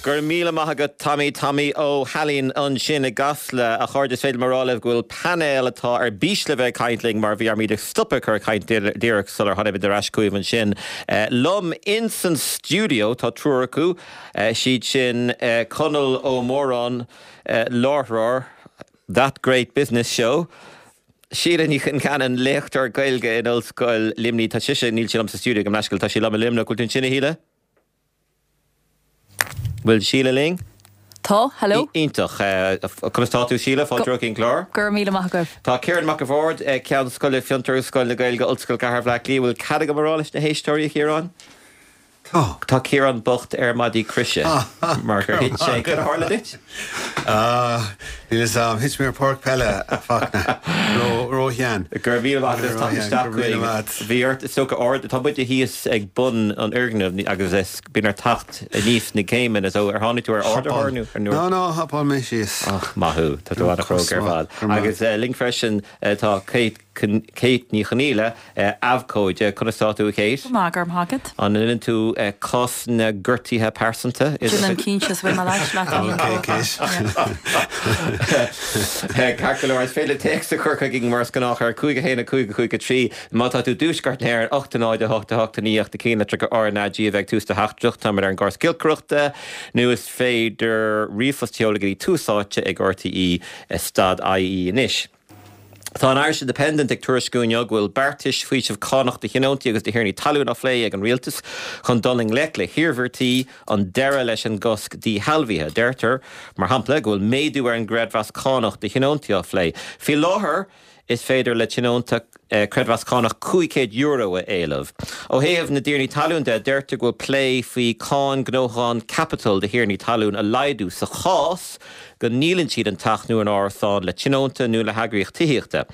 Go raibh míle maith agat Tommy, Tommy Ó hAilín ansin i gCasla. A chairde, is féidir liom a rá libh go bhfuil painéal atá ar bís le bheith ag caint linn mar bhí orm iad a stopadh ag cur caint díreach sular tháinig muid ar ais chugaibh ansin. Liom ins an stiúideo tá triúr acu, siad sin Conall Ó Móráin, láithreoir That Great Business Show, Síle Ní Chonceanainn, léachtóir Gaeilge in Ollscoil Luimnigh, tá sise, níl sí liom sa stiúideo gabh mo leithscéal, tá sí liom i Luimneach, bhfuil tú ansin a Shíle? Bhfuil Síle linn? Tá, hello. Iontach. Conas tá tú Síle? Fáilte romhat chuig an gclár. Go raibh míle maith agaibh. Tá Ciarán Mac a' Bhaird, Ceann Scoile Fiontar agus Scoil na Gaeilge, Ollscoil Chathair Bhaile Átha Cliath. Bhfuil cead agam a rá leis na héisteoirí, a Chiaráin? Tá. Tá Ciarán bocht ar maidí croise mar gur thit sé. Cad a tharla duit? Níl fhios a'm. Thit mé ar páirc peile, a Fachtna. Ró-shean. Go raibh míle maith agat as teacht isteach chugainn. Bhí ort, is dócha, ard, tá muide thíos ag bun an fhoirgnimh agus is bíonn ort teacht aníos na céimeanna so ar tháinig tú ar ardaitheoir nó ar Nó, nó, hopáil mé síos. Ach, maith thú. Tá tú an-chróga ar fad. Agus linn freisin tá Kate Kate Ní Chonaola, abhcóide. Conas tá tú, a Kate? Go maith, go raibh maith agat. An ndéanann tú cás na ngortuithe pearsanta? Déanaim cinnte, is bhfuil mé leat leat Ok, Kate. Ceart go leor, is féidir téacs a chur chugainn mar is gnách ar 5 1 5 5 3. Má tá tú i dtuaisceart na hÉireann, 8 0 8 8 9 ach na cinnlitreacha RnaG a bheith ag tús do theachtaireacht, táimid ar an gcóras giolcaireachta, nó is féidir ríomhphost a sheoladh go dtí Tús Áite ag RTÉ stad IE anois. Tá an Irish Independent ag tuairisciú inniu go bhfuil beartais faoisimh cánach do thionóntaí agus do thiarnaí talún á phlé ag an rialtas chun dul i ngleic le hiarmhairtí an deireadh leis an gcosc díshealbhaithe. Deirtear, mar shampla, go bhfuil méadú ar an gcreidmheas cánach do thionóntaí á phlé. Faoi láthair, is féidir le tionónta creidmheas cánach €500 a éileamh. Ó thaobh na dtiarnaí talún de, deirtear go bhfuil plé faoi cáin gnóthachán caipitil do thiarnaí talún a laghdú sa chás go ndíolann siad an teach nó an árasán le tionónta nó le heagraíocht tithíochta.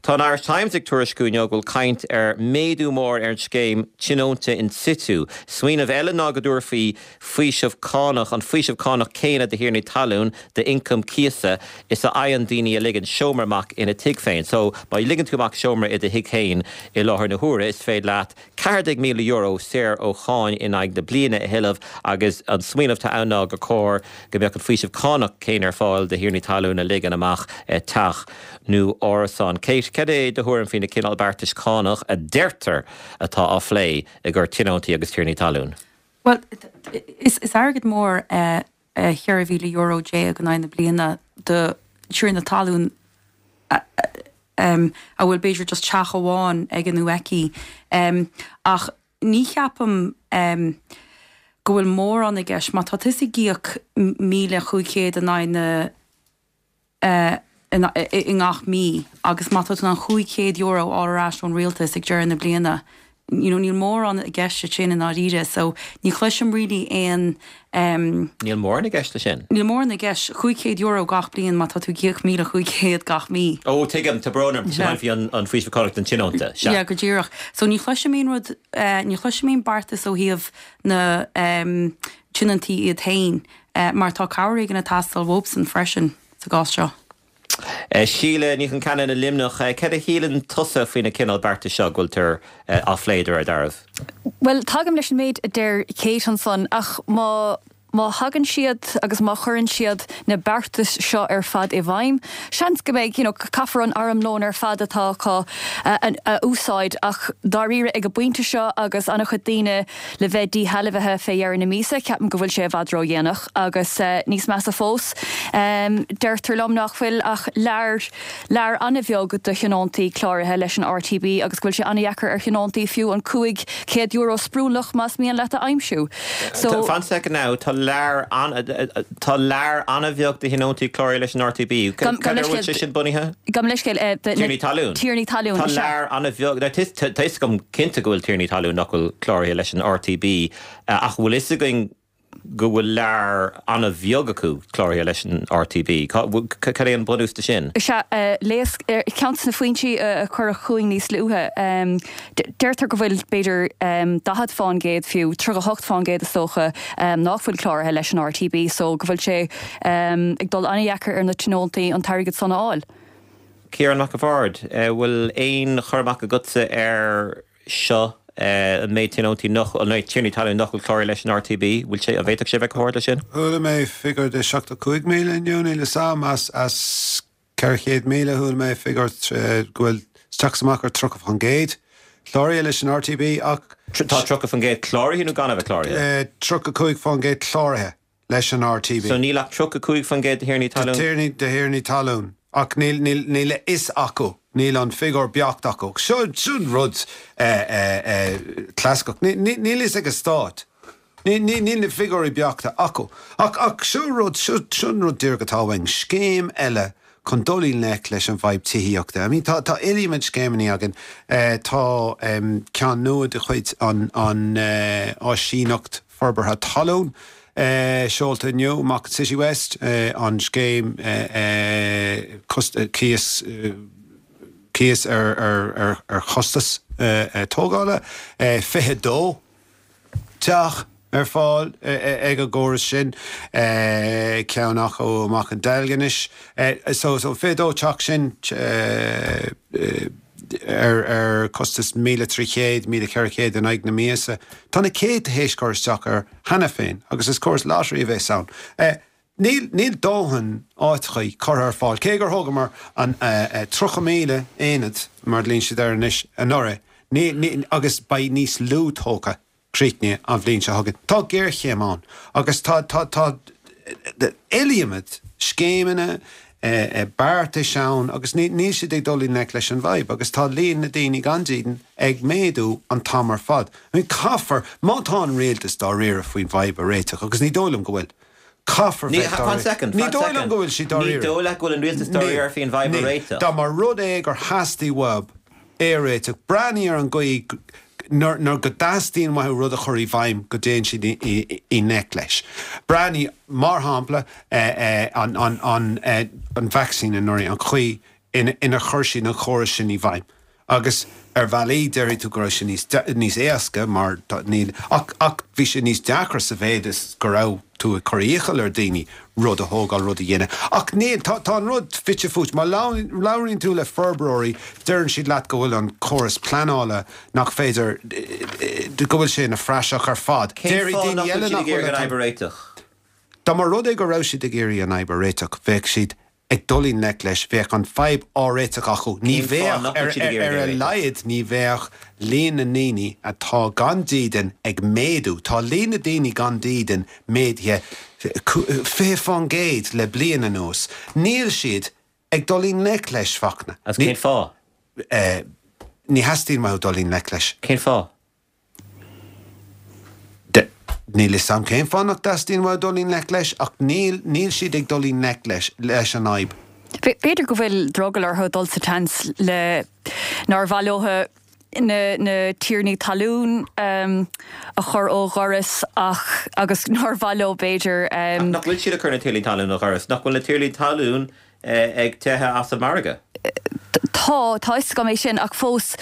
Tá an Irish Times ag tuairisciú inniu go bhfuil caint ar méadú mór ar an scéim tionónta in situ. Smaoineamh eile ná go dtabharfaí faoiseamh cánach, an faoiseamh cánach céanna do thiarnaí talún d'ioncam cíosa is a fhaigheann daoine a ligeann seomra amach ina dtigh féin. So, má ligeann tú amach seomra i do thigh féin i láthair na huaire, is féidir leat €14,000 saor ó cháin in aghaidh na bliana a thuilleamh agus an smaoineamh atá ann ná gur chóir go mbeadh an faoiseamh cánach céanna ar fáil do thiarnaí talún a ligeann amach teach nó árasán. Kate, cad é do thuairim faoi na cineál beartais cánach a deirtear atá á phlé i gcomhair tionóntaí agus tiarnaí talún? Bhuel, is airgead mór é €14,000 in aghaidh na bliana do thiarna talún a bhfuil b'fhéidir just teach amháin aige nó aici. Ach ní cheapaim go bhfuil mórán i gceist. Má tá tusa ag íoc 1,500 in aghaidh na i ngach mí agus má tá tú in ann €500 a fháil ar ais ón rialtas ag deireadh na bliana, you know, níl mórán i gceist leis sin i ndáiríre. So ní chloisim really aon. Níl mórán i gceist leis sin? Níl mórán i gceist. €500 gach bliain má tá tú ag íoc 1,500 gach mí. Ó, tuigim, tá brón orm, tá faoi an faoiseamh cánach don tionónta, sea. Yeah, go díreach. So ní chloisim aon rud, ní chloisim aon beartas ó thaobh na tionóntaí iad féin. Mar tá cabhair éigin ag teastáil uathubsan freisin sa gcás seo. Síle Ní Chonceanainn i Luimneach, cad a shíleann tusa faoi na cineál beartais seo go bhfuiltear á phlé de réir dealraimh? Bhuel, tagaim leis an méid a deir Kate ansan, ach má má thagann siad agus má chuireann siad na beartais seo ar fad i bhfeidhm, seans go mbeidh, you know, caithfear an armlón ar fad atá acu a úsáid ach dáiríre ag an bpointe seo agus an-chuid daoine le bheith díshealbhaithe fé dheireadh na míosa, ceapaim go bhfuil sé i bhfad ródhéanach agus níos measa fós, deirtear liom nach bhfuil ach lear, lear an-bheag de thionóntaí cláraithe leis an RTB agus go bhfuil sé an-dheacair ar thionóntaí fiú an €500 sprúnlach más mian leat a aimsiú. So. Fan soicind now, tá lear an, tá lear an-bheag de thionóntaí cláraithe leis an RTB. Cad ar a bhfuil sé sin bunaithe? Gabh mo leithscéal, de. Tiarnaí talún. Tiarnaí talún, Tá lear an-bheag, now tá 'fhios agam cinnte go bhfuil tiarnaí talún nach bhfuil cláraithe leis an RTB ach bhfuil 'fhios againn go bhfuil lear an-bheag acu cláraithe leis an RTB? Cad é an bunús de sin? Sea, léas, ceann de na foinsí a cuireadh chugainn níos luaithe, deirtear go bhfuil b'fhéidir 40 fán gcéad fiú, 38 fán gcéad is dócha, nach bhfuil cláraithe leis an RTB so go bhfuil sé ag dul an-dheacair ar na tionóntaí an t-airgead san a fháil. Ciarán Mac a' Bhaird, bhfuil aon chur amach agatsa air seo? An méid tionóntaí nach, an méid tiarnaí talún nach bhfuil cláraithe leis an RTB, bhfuil sé, an bhféadfadh sé a bheith chomh hard leis sin? Chuala mé figiúr de 75,000 inniu, níl 'fhios a'm, as, as 400,000 chuala mé figiúr go bhfuil isteach is amach ar 30% cláraithe leis an RTB ach. Tá 30% cláraithe nó gan a bheith cláraithe? 35% cláraithe. leis an RTB. So níl ach 35% de thiarnaí talún. De thiarnaí talún. Ach níl, níl, níl a fhios acu, níl an figiúr beacht acu. Seo, seo an rud clasaiceach. Níl, níl a fhios ag an stát. Níl, níl, níl na figiúirí beachta acu. Ach, ach seo rud, seo, seo an rud díreach atá uainn. Scéim eile chun dul i ngleic leis an bhfadhb tithíochta. I mean, tá, tá iliomad scéimeanna againn. Tá ceann nua de chuid an, an Áisíneacht Forbartha Talún seolta inniu amach in Citywest, an scéim cíos, cíos ar chostas tógála, 22 teach ar fáil ag an gcóras sin, ceann acu amach in Deilginis. So 22 teach sin ar chostas 1,300, 1,400 in aghaidh na míosa. Tá na céadta théis cur isteach air cheana féin agus is córas lottery a bheas ann. Níl, níl dóthain áiteachaí curtha ar fáil, cé gur thógamar an 30,000 aonad, mar a ghlaonn siad air anois, anuraidh, ní, ní, agus beidh níos lú tógtha críochnaithe an bhliain seo chugainn. Tá géarchéim ann agus tá, tá, tá iliomad scéimeanna, beartais ann agus ní, níl siad ag dul i ngleic leis an bhfadhb agus tá líon na daoine gan dídean ag méadú an t-am ar fad. I mean, caithfear, má tá an rialtas dáiríre faoin bhfadhb a réiteach, agus ní dóigh liom go bhfuil, caithfear bheith dáiríre. Fan second, fan second. Ní dóigh liom go bhfuil siad dáiríre. Ní dóigh leat go bhfuil an rialtas dáiríre faoin bhfadhb a réiteach? Dá mba rud é gur theastaigh uathub é a réiteach, breathnaigh ar an gcaoi nuair go dteastaíonn uathu rud a chur i bhfeidhm go dtéann siad i ngleic leis. Breathnaigh, mar shampla, an vacsaín anuraidh, an chaoi inar chuir siad an chóras sin i bhfeidhm. Agus ar bhealaí déarfaidh tú go raibh sé níos níos éasca mar níl ach ach bhí sé níos deacra sa mhéid is go raibh tú ag cur iachall ar daoine rud a thógáil, rud a dhéanamh. Ach níl, tá tá an rud fite fuaite. Má labhraíonn tú le forbróirí deireann siad leat go bhfuil an córas pleanála nach féidir, go bhfuil sé ina phraiseach ar fad. Cén fáth nach bhfuil siad ag iarraidh an fhadhb a réiteach? Dá mba rud é go raibh siad ag iarraidh an fhadhb a réiteach bheadh siad ag dul i ngleic leis, bheadh an fadhb á réiteach acu. Ní Cén fáth bheadh, nach bhfuil siad ag ar iarraidh a é a réiteach? laghad, ní bheadh líon na ndaoine atá gan dídean ag méadú. Tá líon na daoine gan dídean méadaithe 20% le bliain anuas. Níl siad ag dul i ngleic leis, Fachtna. Agus cén fáth? Ní theastaíonn uathu dul i ngleic leis. Cén fáth? D, Níl 'fhios a'm cén fáth nach dteastaíonn uathu dul i ngleic leis, ach níl, níl siad ag dul i ngleic leis, leis an fhadhb. B'fhéidir go bhfuil drogall orthu dul sa tseans le nár mhaith leo na, na tiarnaí talún a chur ó dhoras ach, agus nár mhaith leo b'fhéidir. Ach nach bhfuil siad ag cur na tiarnaí talún ó dhoras? Nach bhfuil na tiarnaí talún ag teitheadh as an margadh. Tá, tá 'fhios agam é sin, ach fós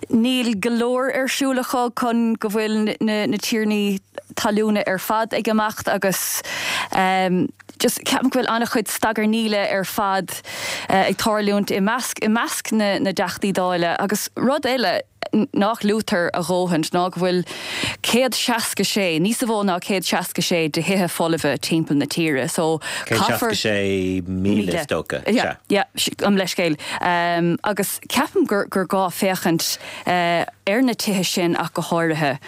níl go leor ar siúl acu chun go bhfuil na tiarnaí talúna ar fad ag imeacht agus just ceapaim go bhfuil an-chuid stagarnaíle ar fad ag tarlúint i measc, i measc na dTeachtaí Dála agus rud eile, nach luaitear a dhóthain ná go bhfuil 166, níos mó ná 166 de thithe folmha timpeall na tíre so caithfear. 166,000 is dócha, sea. Yeah, gabh mo leithscéal. Agus ceapaim gur gur gá féachaint ar na tithe sin ach go háirithe.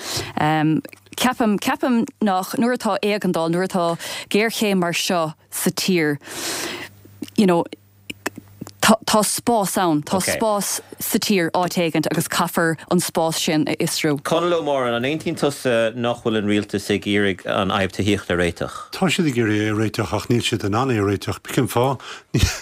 Ceapaim, ceapaim nach, nuair atá éigeandáil, nuair atá géarchéim mar seo sa tír, you know, Tá spás ann, tá spás sa tír áit éigint agus caithfear an spás sin a fhiosrú. Conall Ó Móráin, an aontaíonn tusa nach bhfuil an rialtas ag iarraidh an fhadhb tithíochta a réiteach? Tá siad ag iarraidh é a réiteach ach níl siad in ann é a réiteach. Cén fáth?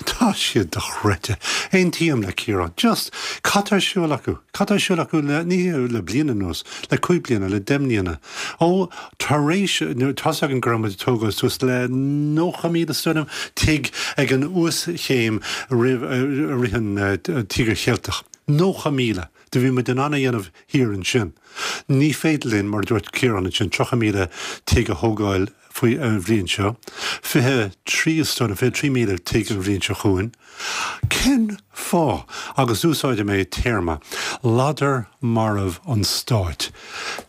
Tá siad dochreidte. Aontaím le Ciarán. Just, cad tá ar siúl acu? Cad tá ar siúl acu le, ní le bliain anuas, le cúig bliana, le deich mbliana? Ó, tar éis, tá's againn go raibh muid ag tógáil suas le 90,000 is dóigh liom, tigh ag an uaschéim roimh, i rith an Tíogar Cheilteach. 90,000! Do bhí muid in ann a dhéanamh thiar ansin. Ní féidir linn, mar a dúirt Ciarán ansin, 30,000 tigh a thógáil faoi an bhliain seo, 23 is dóigh liom, 23,000 tigh an bhliain seo chugainn. Cén fáth? Agus úsáidfidh mé téarma, ladar marbh an stáit.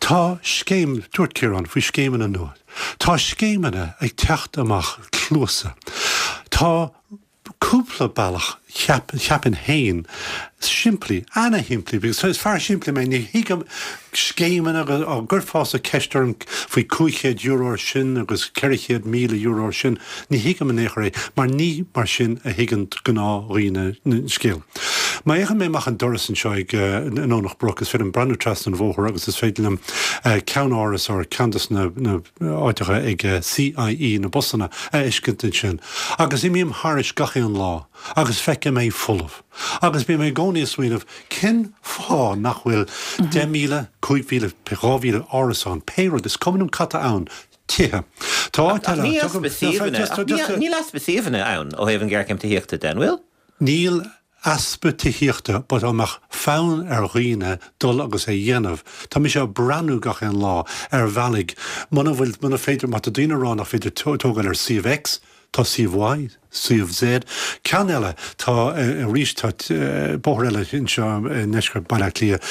Tá scéim, dúirt Ciarán faoi scéimeanna nua. Tá scéimeanna ag teacht amach cluasa. Tá cúpla bealach, cheapfainn féin, simplí, ana-shimplí, because is fear simplí mé, ní thuigim scéimeanna agus á gcuirfeása ceist orm faoi €500 ar sin agus €400,000 ar sin, ní thuigim in aon chor é, mar ní mar sin a thuigeann gnáthdhaoine an scéal. Má fhéachann mé amach an doras anseo ag i nDomhnach Broc, is féidir liom breathnú trasna an bhóthair agus is féidir liom ceannáras or ceann de na áiteacha ag CIE, na busanna, a fheiscint ansin. Agus imím thairis gach aon lá agus feicim é folamh. Agus bím i gcónaí ag smaoineamh, cén fáth nach bhfuil 10,000, 5,000, 2,000 árasán, pé rud, is cuma liom cad tá ann, tithe. Tá áit eile, tugaim, Níl easpa suíomhanna ann ó thaobh an ghéarchéim tithíochta de, an bhfuil? Níl easpa tithíochta but dá mbeadh fonn ar dhaoine dul agus é dhéanamh, tá mise ag breathnú gach aon lá ar bhealaigh, muna bhfuil, muna féidir, má tá daoine ag rá nach féidir tógáil ar suíomh X, tá suíomh Y, suíomh Z. Ceann eile, tá, arís, tá bóthar eile anseo i ndeisceart Baile Átha Cliath,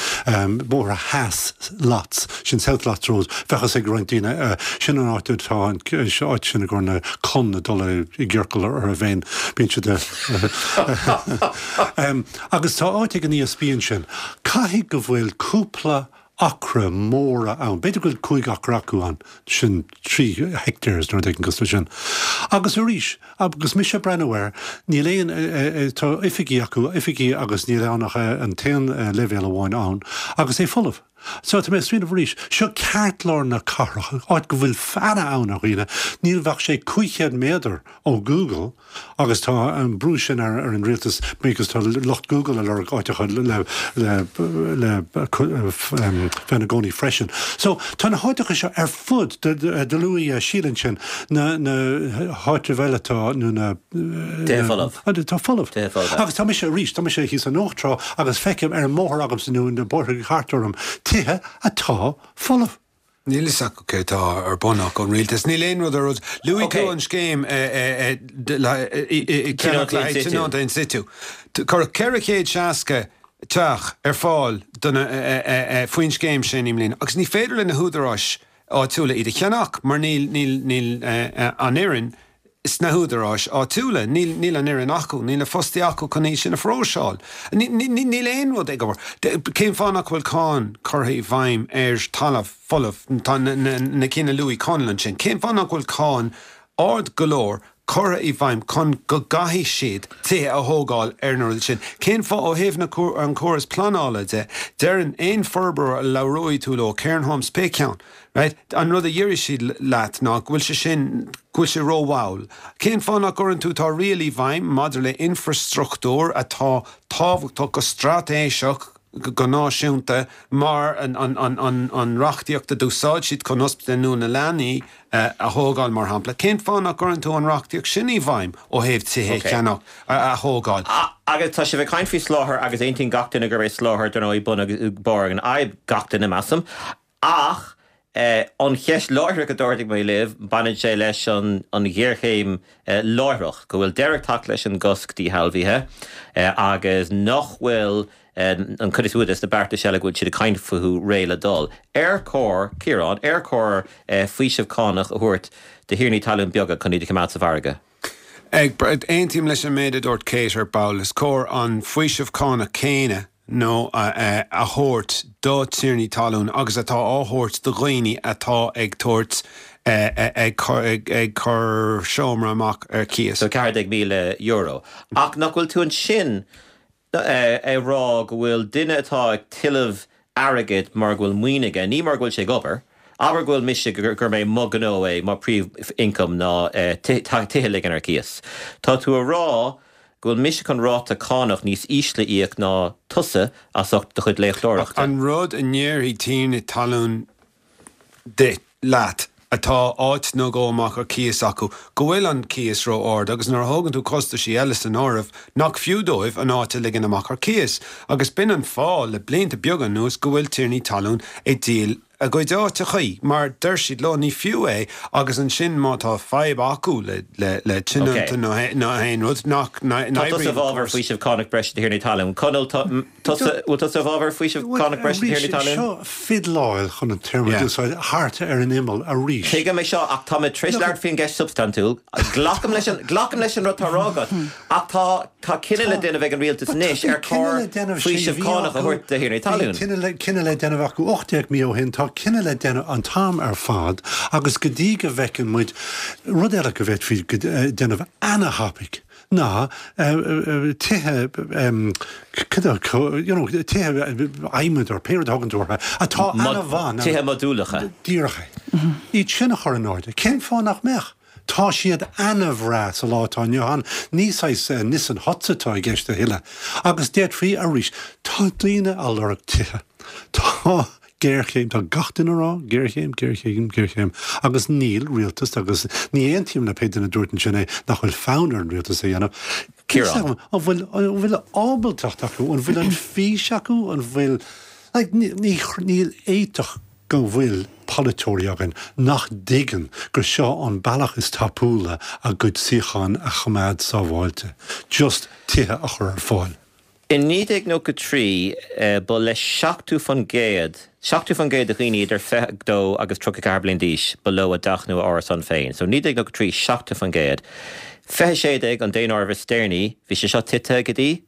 Bóthar Theas Lots, sin South Lots Road, bheadh fhios ag roinnt daoine, sin an áit atá an áit sin i gcomhair na con ag dul i gciorcal orthu féin, bíonn siad Agus tá áit ag an ESB ansin. Caithfidh go bhfuil cúpla acra móra ann, b'fhéidir go bhfuil 5 acra acu ann, sin 3 hectares nó rud éigin cosúil leis sin. Agus arís, agus mise ag breathnú air, níl aon, tá oifigí acu, oifigí agus níl ann ach an t-aon leibhéal amháin ann agus é folamh. So, tá mé ag smaoineamh arís, seo ceartlár na cathrach, áit go bhfuil an-fhonn ar dhaoine, níl bheadh sé 500 méadar ó Google agus tá an brú sin ar an rialtas because tá lucht Google ag lorg áiteacha le le le bheith ina gcónaí freisin. So, tá na háiteacha seo ar fud, do luaigh Síle ansin, na na háitribh eile atá nó na Tithe folamh. Tá folamh. Tithe folamh. Agus tá mise arís, tá mise thíos i Nóch Trá agus feicim ar an mbóthar agamsa nó na bóithre thart orm tithe atá folamh. Níl fhios acu cé atá ar bun acu, an rialtas. Níl aon rud ar rud. Luaigh tú an scéim ceannach le haghaidh tionónta in situ. Cuireadh 460 teach ar fáil faoin scéim sin i mbliana agus ní féidir le na húdaráis áitiúla iad a cheannach mar níl an fhoireann sna húdaráis áitiúla. Níl, níl an fhoireann acu, níl na fostaithe acu chun iad sin a phróiseáil. Níl aon rud ag obair. Cén fáth nach bhfuil cáin curtha i bhfeidhm ar talamh folamh, tá na cinn a luaigh Conall ansin, cén fáth nach bhfuil cáin ard go leor curtha i bhfeidhm chun go gcaithfidh siad tithe a thógáil ar na rudaí sin? Cén fáth ó thaobh na, an córas pleanála de, deireann aon forbróir a labhróidh tú leo, Cairn Homes, pé ceann, Right? An rud a déarfaidh siad leat ná go bhfuil sé sin, go bhfuil sé rómhall. Cén fáth nach gcuireann tú, tá riail i bhfeidhm maidir le infreastruchtúr atá tábhachtach go straitéiseach go náisiúnta mar an reachtaíocht a d'úsáid siad chun Ospidéal Nua na Leanaí a thógáil mar shampla. Cén fáth nach gcuireann tú an reachtaíocht sin i bhfeidhm ó thaobh tithe a cheannach, a thógáil? Agus tá sibh ag caint faoi soláthar agus aontaíonn gach duine gurb é soláthar, dar ndóigh, bun agus barr an fhadhb, gach duine measaim. Ach an cheist láithreach a d'ardaigh mé libh, baineann sé leis an ghéarchéim láithreach, go bhfuil deireadh ag teacht leis an gcosc díshealbhaithe agus nach bhfuil an chuid is mó de na beartais eile go bhfuil siad ag caint fúthu réidh le dul. Ar chóir, Ciarán, ar chóir faoiseamh cánach a thabhairt do thiarnaí talún beaga chun iad a choimeád sa mhargadh? Aontaím leis an méid a dúirt Kate ar ball. Is cóir an faoiseamh cánach céanna nó a thabhairt do tiarnaí talún agus atá á thabhairt do dhaoine atá ag tabhairt, ag cur seomra amach ar cíos. So €14,000. Ach nach bhfuil tú ansin ag rá go bhfuil duine atá ag tuilleamh airgid mar go bhfuil maoin aige, ní mar go bhfuil sé ag obair, abair go bhfuil mise, gur mé mo ghnó é, mo príomh-income ná tithe a ligean ar cíos. Tá tú a rá go bhfuil mise chun ráta cánach níos ísle a íoc ná tusa as ucht do chuid léachtóireachta. An rud a ndéarfaidh tiarna talún duit, leat. atá áit nó dhó amach ar cíos acu, go bhfuil an cíos ró-ard agus nuair a thógann tú costaisí eile san áireamh, nach fiú dóibh an áit a ligean amach ar cíos. Agus b'in an fáth le blianta beaga anuas go bhfuil tiarnaí talún ag díol a gcuid áiteachaí mar deir siad leo ní fiú é agus ansin má tá fadhb acu le le tionónta nó aon rud nach Tá tusa i bhfabhar faoiseamh cánach breise do thiarnaí talún. Conall, tá tusa, bhfuil tusa i bhfabhar faoiseamh cánach breise do thiarnaí talún? Seo fiddleáil chun an téarma a úsáid thart ar an imeall arís. Tuigim é seo ach tá mé tar éis labhairt faoin gceist substaintiúil. Glacaim leis an, glacaim leis an rud atá á rá agat ach tá, Tá cinneadh le déanamh ag an rialtas anois ar chóir faoiseamh cánach a thabhairt do thiarnaí talún. Bhí cinneadh le déanamh acu 18 mí ó shin, tá cinneadh le déanamh an t-am ar fad agus go dtí go bhfeiceann muid rud eile go bhféadfaí déanamh ana-thapaidh ná tithe you know tithe adhmaid or pé rud a thugann tú orthu atá ana-mhaith. Tithe modúlacha. Díreach é. Iad sin a chur in airde. Cén fáth nach mbeadh? Tá siad ana-bhreá sa lá atá inniu ann, ní saghas Nissen huts atá i gceist a thuilleadh. Agus d'fhéadfaí arís, tá daoine a lorg tithe. Tá géarchéim, tá gach duine a rá, géarchéim, géarchéim, géarchéim. Agus níl rialtas, agus ní aontaím le pé duine a dúirt ansin é, nach bhfuil fonn ar an rialtas é a dhéanamh. Ciarán. An bhfuil, an bhfuil ábaltacht acu, an bhfuil an fís acu, an bhfuil, like, ní, níl fhéadfadh go bhfuil polaiteoirí againn nach dtuigeann gur seo an bealach is tapúla a gcuid suíochán a choimeád sábháilte, just tithe a chur ar fáil. In 1993, ba le 70%, 70% de dhaoine idir 22 agus 34 bliain d'aois, ba leo a dteach nó a árasán féin. So 1993, 70%. 2016, an daonáireamh is deireanaí, bhí sé seo tite go dtí?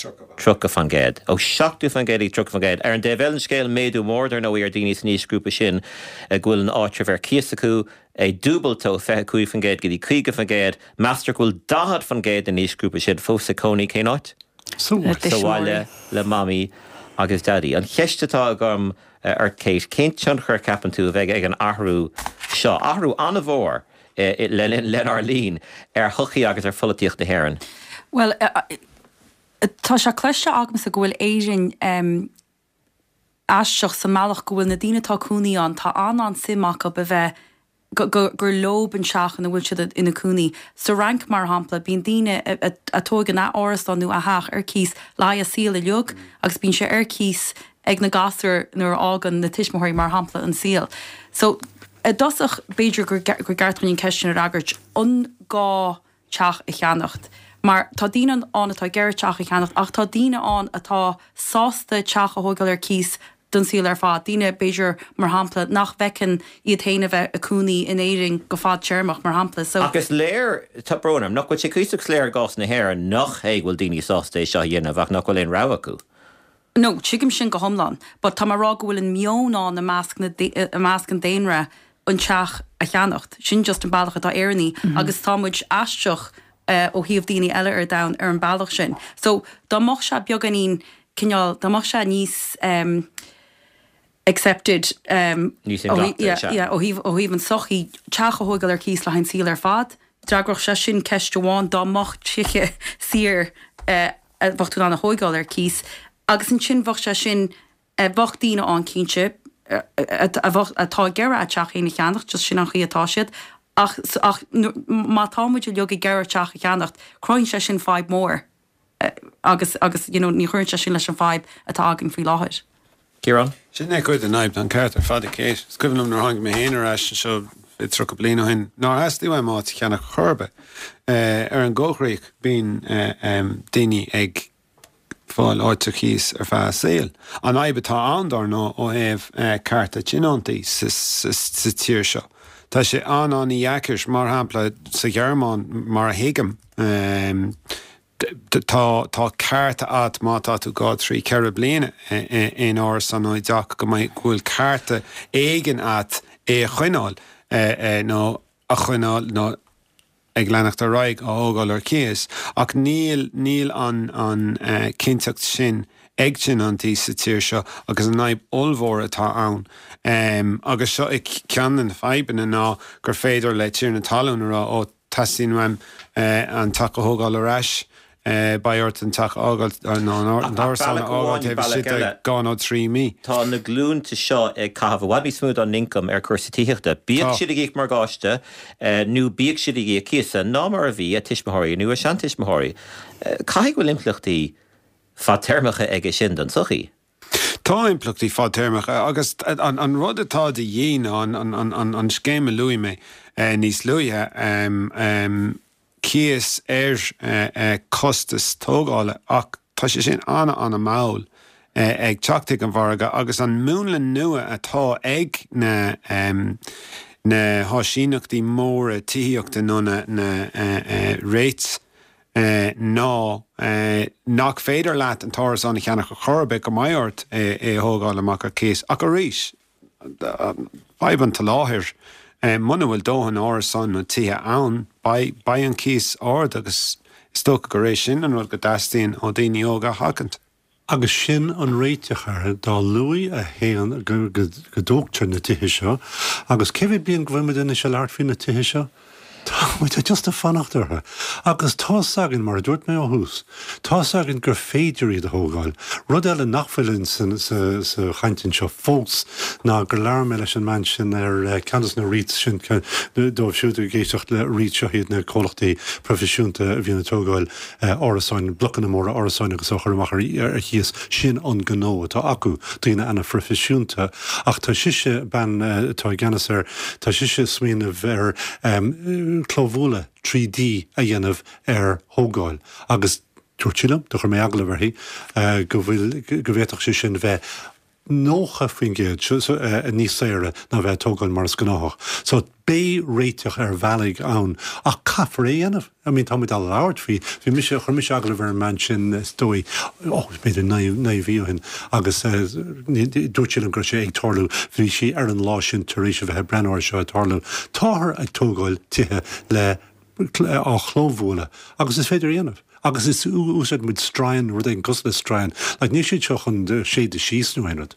30%. Ó 70% go dtí 30%. Ar an dtaobh eile den scéal, méadú mór, dar ndóigh, ar daoine san aoisghrúpa sin go bhfuil an áitreabh ar cíos acu, é dúbailte ó 25% go dtí 50%. Meastar go bhfuil 40% den aoisghrúpa sin fós ag cónaí cén áit? Sa bhaile le Mamaí agus Daidí. An cheist atá agam ort Kate, cén tionchar a cheapann tú a bheidh ag an athrú seo, athrú an-mhór, lenár linn ar shochaí agus ar pholaitíocht na hÉireann? Bhuel, tá sé cloiste agamsa go bhfuil Éirinn aisteach sa mbealach go bhfuil na daoine atá cónaí ann, tá an-an-suim acu a bheith, gur leob an teach ina bhfuil siad ina cónaí. Sa Fhrainc, mar shampla, bíonn daoine a tóigeann a árasán nó a theach ar cíos le haghaidh a saol uilig agus bíonn sé ar cíos ag na gasúir nuair a fhágann na tuismitheoirí, mar shampla, an saol. So, i dtosach, b'fhéidir gur ceart dúinn an ceist sin a fhreagairt, an gá teach a cheannacht? Mar tá daoine ann atá ag iarraidh teach a cheannacht ach tá daoine ann atá sásta teach a thógáil ar cíos don saol ar fad, daoine, b'fhéidir, mar shampla, nach bhfeiceann iad féin a bheith ag cónaí in Éirinn go fadtéarmach, mar shampla. So. Ach is léir, tá brón orm, nach bhfuil sé cuíosach soiléir i gcás na hÉireann nach é go bhfuil daoine sásta é seo a dhéanamh ach nach bhfuil aon rogha acu. No, tuigim sin go hiomlán, but tá mé ag rá go bhfuil an meon ann i measc na, i measc an daonra an teach a cheannacht. Sin just an bealach atá Éireannaigh agus tá muid aisteach ó thaobh daoine eile ar domhan ar an bealach sin. So, dá mbeadh sé beagáinín cineál, dá mbeadh sé níos ehm accepted ehm Níos inghlactha, yeah, sea. yeah, ó thaobh, ó thaobh an sochaí, teach a thógáil ar cíos le haghaidh an saol ar fad, d'fhreagródh sé sin ceist amháin dá mbeadh tithe saor eh, a bheadh tú in ann a thóigeáil ar cíos agus ansin bheadh sé sin, bheadh daoine ann cinnte a bheadh, atá ag iarraidh a dteach féin a cheannacht, just sin an chaoi atá siad ach, ach má tá muid uilig ag iarraidh teach a cheannacht, cruthaíonn sé sin fadhb mhór agus, agus you know ní chuireann sé sin leis an fadhb atá againn faoi láthair. Ciarán? Sin é cuid den fhadhb, tá an ceart ar fad ag Kate. Is cuimhin liom nuair a tháinig mé féin ar ais anseo 30 bliain ó shin, nár theastaigh uaim áit a cheannach chor ar bith. Ar an gcoigríoch, bíonn daoine ag fáil áit ar cíos ar feadh a saoil. An fhadhb atá ann, dár ndóigh, ó thaobh cearta tionóntaí sa tír seo, tá sé an-an-dheacair, mar shampla sa Ghearmáin, mar a thuigim, Tá tá ceart agat má tá tú 2, 3, 4 bliana in árasán nó i dteach go mbeidh go bhfuil cearta éigin agat é a choinneáil nó a choinneáil nó ag leanacht ar aghaidh á thógáil ar cíos ach níl níl an an cinnteacht sin ag tionóntaí sa tír seo agus an fhadhb ollmhór atá ann agus seo é ceann de na fadhbanna ná gur féidir le tiarna talún a rá ó Teastaíonn uaim an teach a thógáil ar ais. Beidh ort an teach a fhágáil nó an t-árasán a fhágáil taobh istigh de dhá nó trí mí. Tá na glúnta seo ag caitheamh i bhfad níos mó dá n-ioncam ar chúrsaí tithíochta, bíodh siad ag íoc morgáiste nó bíodh siad ag íoc cíosa, ná mar a bhí a tuismitheoirí nó a seantuismitheoirí. Caithfidh go bhfuil impleachtaí fadtéarmacha aige sin don tsochaí. Tá impleachtaí fadtéarmacha agus an rud atá de dhíth ná an scéim a luaigh mé níos luaithe, cíos ar chostas tógála ach tá sé sin an-an-mhall ag teacht chuig an mhargadh agus an múnla nua atá ag na na háisíneachtaí móra tithíochta nó na na REITs ná nach féidir leat an t-árasán a cheannach ar chor ar bith go mbeidh ort é a thógáil amach ar cíos ach arís Fadhb an tsoláthair. Muna bhfuil dóthain árasán nó tithe ann, beidh an cíos ard agus is dócha gur é sin an rud go dteastaíonn ó daoine óga a sheachaint. Agus sin an réiteach air, dá luaithe a théann go dtógtar na tithe seo, agus cé mhéad bliain go bhfuil muid anois ag labhairt faoi na tithe seo? Tá muid just ag fanacht orthu. Agus tá's againn, mar a dúirt mé ó thús, tá's againn gur féidir iad a thógáil. Rud eile nach bhfuil in sa sa chaint anseo fós ná gur labhair mé leis an mbean sin ar ceann de na REITs sin, dóibh siúd ag éisteacht le REITs, seo iad na comhlachtaí proifisiúnta a bhíonn ag tógáil árasáin, blocanna móra árasáin agus á chur amach ar chíos, sin an gnó atá acu, daoine ana-phroifisiúnta. Ach tá sise, bean atá i gceannas air, tá sise ag smaoineamh ar clóbhualadh 3D a dhéanamh ar thógáil agus dúirt sí liom, do chuir mé agallamh uirthi, go bhfuil, go bhféadfadh sé sin bheith 90% níos saoire ná bheith ag tógáil mar is gnáthach. So beidh réiteach ar bhealaigh ann ach caithfear é a dhéanamh. I mean tá muid á labhairt faoi, bhí mise, chuir mise agallamh ar an mbean sin is dóigh, oh b'fhéidir naoi mhí ó shin agus dúirt sí liom go raibh sé ag tarlú, bhí sí ar an lá sin tar éis a bheith ag breathnú air seo ag tarlú. Táthar ag tógáil tithe le á chlóbhualadh agus is féidir a dhéanamh. Agus is úsáideann muid stroighin, rud éigin cosúil le stroighin. Like níl siad seo chun séideadh síos nó aon rud.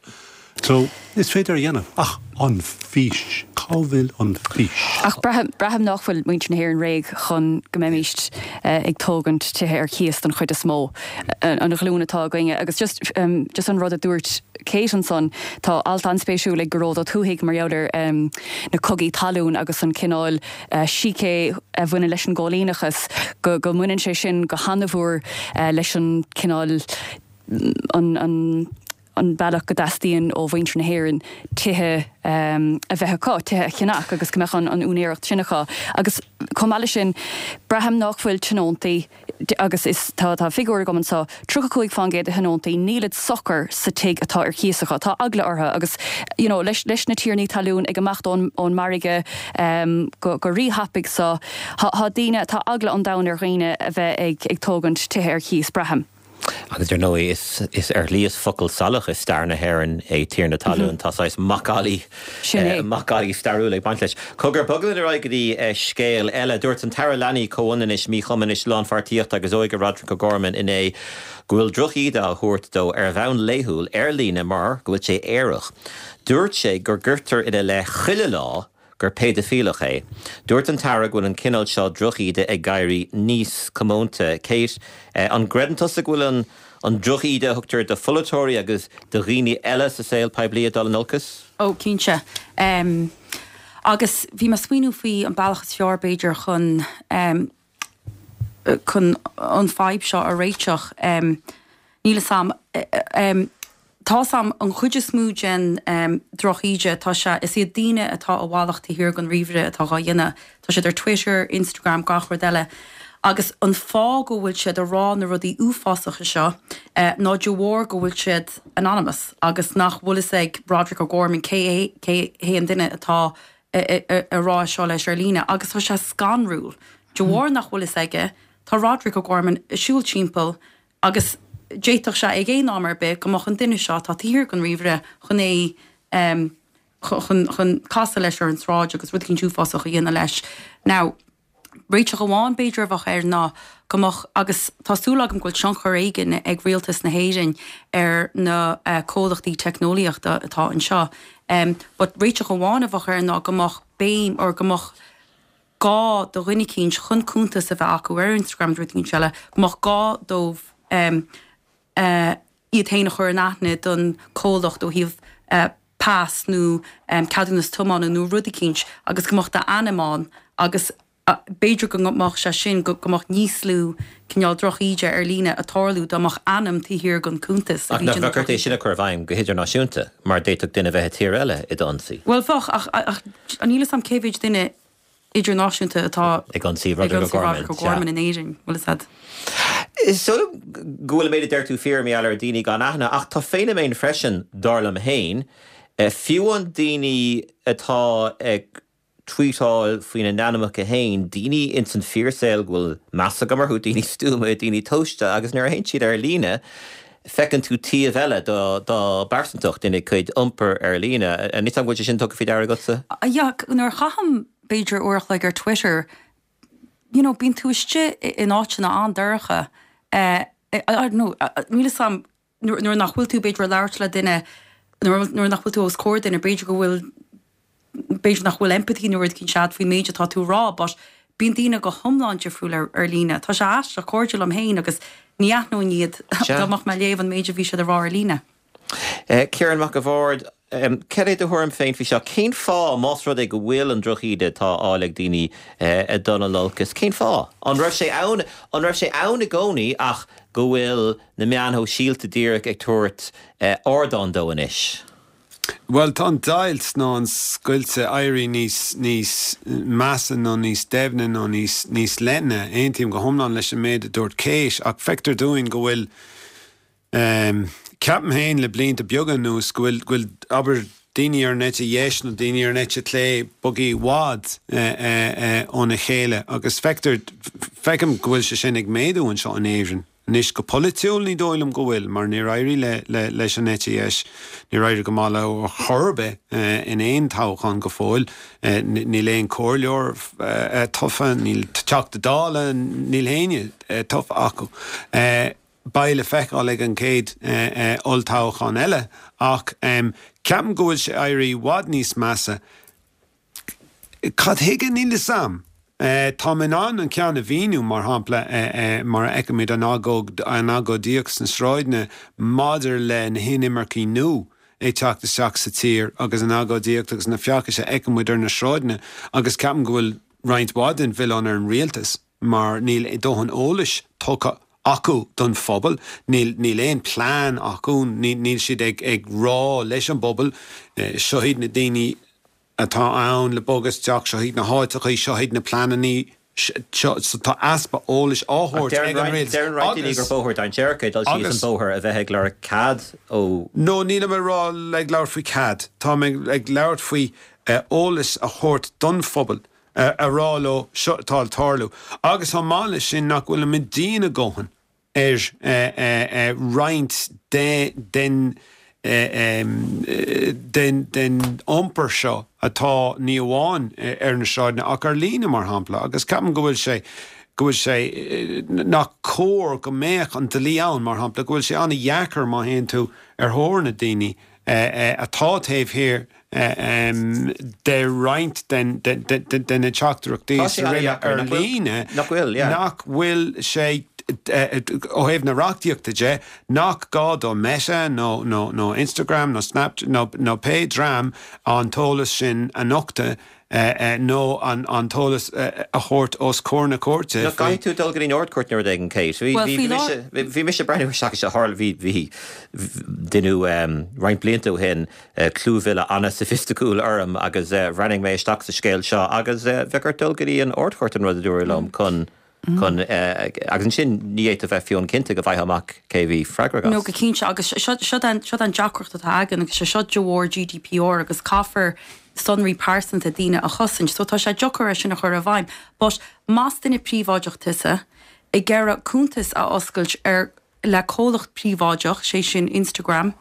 So, is féidir a dhéanamh. Ach an fís, cá bhfuil an fís? Ach braithim, braithim nach bhfuil muintir na hÉireann réidh chun go mbeimíst ag tógaint tithe ar cíos don chuid is mó, an ghlúin atá againne. Agus just, just an rud a dúirt Kate ansan, tá alt an-spéisiúil ag Gearóid Ó Tuathaigh mar gheall ar na cogaí talún agus an cineál, sícé a bhaineann leis an gcóilíneachas, go mbaineann sé sin go han-mhór leis an cineál, an an bealach go dteastaíonn ó mhuintir na hÉireann tithe a bheith acu, tithe a cheannach agus go mbeadh an úinéireacht sin acu. Agus chomh maith leis sin, braithim nach bhfuil tionóntaí, agus is tá tá figiúr agam anseo, 35% de thionóntaí, nílid socair sa tigh atá ar cíos acu, tá eagla orthu agus you know leis leis na tiarnaí talún ag imeacht ón ón margadh go go rí-thapaidh so tá tá daoine, tá eagla an domhain ar dhaoine a bheith ag ag tógaint tithe ar chíos, braithim. Agus ar ndóigh, is ar shlí is focal salach i stair na hÉireann é tiarna talún. Tá saghas macallaí, macallaí stairiúil ag baint leis. Cogar, bogfaidh muid ar aghaidh go dtí scéal eile. Dúirt an tAire Leanaí, Comhionannais, Míchumais, Lánpháirtíochta agus Óige Roderic O'Gorman inné go bhfuil drochíde á thabhairt dó ar bhonn laethúil ar líne mar go bhfuil sé aerach. Dúirt sé go gcuirtear ina leith chuile lá gur péidifileach é. Dúirt an tAire go bhfuil an cineál seo drochíde ag éirí níos comónta. Kate, an gcreideann tusa go bhfuil an an drochíde a thugtar do pholaiteoirí agus do dhaoine eile sa saol poiblí ag dul in olcas? Ó, cinnte. Agus bhí mé ag smaoineamh faoi an bealach is fearr, b'fhéidir, chun chun an fadhb seo a réiteach. Níl 'fhios a'm. Tá 'fhios a'm, an chuid is mó den drochíde, tá sé, is iad daoine atá i bhfalach taobh thiar den ríomhaire atá dhá dhéanamh. Tá siad ar Twitter, Instagram, gach rud eile. Agus an fáth go bhfuil siad ag rá na rudaí uafásacha seo ná de bharr go bhfuil siad anonymous agus nach bhfuil fhios ag Roderic O'Gorman cé hé, cé hé an duine atá ag rá seo leis ar líne. Agus tá sé scanrúil. De bharr nach bhfuil fhios aige, tá Roderic O'Gorman ag siúl timpeall Agus d'fhéadfadh sé ag aon am ar bith go mbeadh an duine seo atá taobh thiar den ríomhaire chun é chun chun casadh leis ar an tsráid agus rud eicínt uafásach a dhéanamh leis. Now, réiteach amháin b'fhéidir a bheadh air ná go mbeadh, agus tá súil agam go bhfuil tionchar éigin ag rialtas na hÉireann ar na comhlachtaí teicneolaíochta atá anseo, but réiteach amháin a bheadh air ná go mbeadh béim or go mbeadh. gá do dhuine eicínt chun cuntas a bheith acu ar Instagram nó rud eicínt eile, go mbeadh gá dóibh iad féin a chur in aithne don comhlacht ó thaobh pas nó ceadúnas tiomána nó rud eicínt agus go mbeadh d'ainm ann agus b'fhéidir go mbeadh sé sin, go mbeadh níos lú cineál drochíde ar líne ag tarlú dá mbeadh ainm taobh thiar den cuntas a bhí Ach nach bheadh ort é sin a chur i bhfeidhm go hidirnáisiúnta mar d'fhéadfadh duine bheith i tír eile i d'ionsaí? Bhuel bheadh ach ach níl 'fhios a'm cé mhéid duine idirnáisiúnta atá ag ionsaí Roderick O'Gorman O'Gorman in Éirinn, bhfuil 'fhios a'd. Is dóigh liom go bhfuil an méid a deir tú fíor mar gheall ar daoine gan aithne ach tá feiniméan freisin, dar liom féin, fiú an daoine atá ag tweetáil faoina n-ainmneacha féin, daoine ins an fíorsaol go bhfuil meas agam orthu, daoine stuama, daoine tomhaiste, agus nuair a théann siad ar líne, feiceann tú taobh eile dá bpearsantacht ina gcuid iompair ar líne. An go bhfuil sé sin tugtha faoi deara agatsa? Yeah, nuair a chaithim b'fhéidir uair a chloig ar Twitter, you know, bíonn tú istigh in áiteanna an-dorcha, I don't know, níl 'fhios a'm, nuair nach bhfuil tú b'fhéidir ag labhairt le duine, nuair nach bhfuil tú os comhair duine, b'fhéidir go bhfuil, b'fhéidir nach bhfuil empathy nó rud eicínt a'd faoin méid atá tú a rá but bíonn daoine go hiomlán difriúil ar, ar líne. Tá sé aisteach, cairde liom féin agus ní aithneoinn iad dá mbeadh mé ag léamh an méid a bhí siad a rá ar líne. Ciarán Mac a' Bhaird, Cad é do thuairim féin faoi seo? Cén fáth, más rud é go bhfuil an drochíde atá á fháil ag daoine ag dul in olcas, cén fáth? An raibh sé ann, an raibh sé ann i gcónaí ach go bhfuil na meáin shóisialta díreach ag tabhairt ardán dó anois? Bhuel, tá an deighilt nó an scoilt ag éirí níos, níos measa nó níos doimhne nó níos, níos leithne. Aontaím go hiomlán leis an méid a dúirt Kate ach feictear dúinn go bhfuil, Ceapaim féin le blianta beaga anuas go bhfuil, go bhfuil, abair, daoine ar an eite dheis nó daoine ar an eite chlé bogtha i bhfad óna chéile agus feictear, feicim go bhfuil sé sin ag méadú anseo in Éirinn. Anois go polaitiúil ní dóigh liom go bhfuil mar níor éirigh le, le, leis an eite dheis, níor éirigh go maith leo ar chor ar bith in aon toghchán go fóill. Níl aon chomhairleoir tofa, níl Teachta Dála, níl éinne tofa acu. Beidh le feiceáil ag an gcéad olltoghchán eile ach ceapaim go bhfuil sé ag éirí i bhfad níos measa. Cad chuige? Níl 'fhios a'm. Táim in ann an ceann a mhíniú, mar shampla, mar a fheicimid an agóid, an agóidíocht sna sráideanna maidir le na hinimircigh nua ag teacht isteach sa tír agus an agóidíocht agus na feachtais a fheiceann muid ar na sráideanna agus ceapaim go bhfuil roinnt mhaith den mhilleán ar an rialtas. mar níl dóthain eolais tugtha acu don phobal, níl níl aon plean acu, níl siad ag ag rá leis an bpobal, seo iad na daoine atá ann le bogadh isteach, seo iad na háiteachaí, seo iad na pleanannaí, seo, so tá easpa eolais á thabhairt ag an rialtas Deireann roinnt daoine gur bóthar dainséarach é dul síos an bóthar a bheith ag lorg cead ó. No, nílim ag rá, ag labhairt faoi cead, táim ag labhairt faoi eolas a thabhairt don phobal. a rá leo seo atá ag tarlú agus chomh maith leis sin nach bhfuilimid dian a dhóthain ar roinnt den den iompar seo atá ní amháin ar na sráideanna ach ar líne mar shampla agus ceapaim go bhfuil sé go bhfuil sé nach cóir go mbeadh an dlí ann mar shampla go bhfuil sé an-dheacair má théann tú ar thóir na daoine atá taobh thiar de roinnt de na teachtaireachtaí ar líne nach bhfuil sé, ó thaobh na reachtaíochta de, nach gá do Meta nó Instagram nó Snapchat nó pé dream an t-eolas sin a nochtadh nó an t-eolas a thabhairt os comhair na cúirte. Nach gcaithfidh tú dul go dtí an Ard-Chúirt nó rud éigin, Kate? Bhí mise, bhí mise ag breathnú isteach is tharla, bhí, bhí, deineadh roinnt blianta ó shin clúmhilleadh an-soifisticiúil orm agus bhreathnaigh mé isteach sa scéal seo agus bheadh ort dul go dtí an Ard-Chúirt an rud a dúradh liom chun chun agus ansin ní fhéadfá bheith fiú cinnte go bhfaighfeá amach cé a bhí freagrach as. No go cinnte agus seo seo an deacracht atá againn agus sé seo de bharr GDPR agus caithfear sonraí pearsanta daoine a chosaint so tá sé deacair é sin a chur i bhfeidhm but más duine príobháideach tusa ag iarraidh cuntas a oscailt ar le comhlacht príobháideach, sé sin Instagram,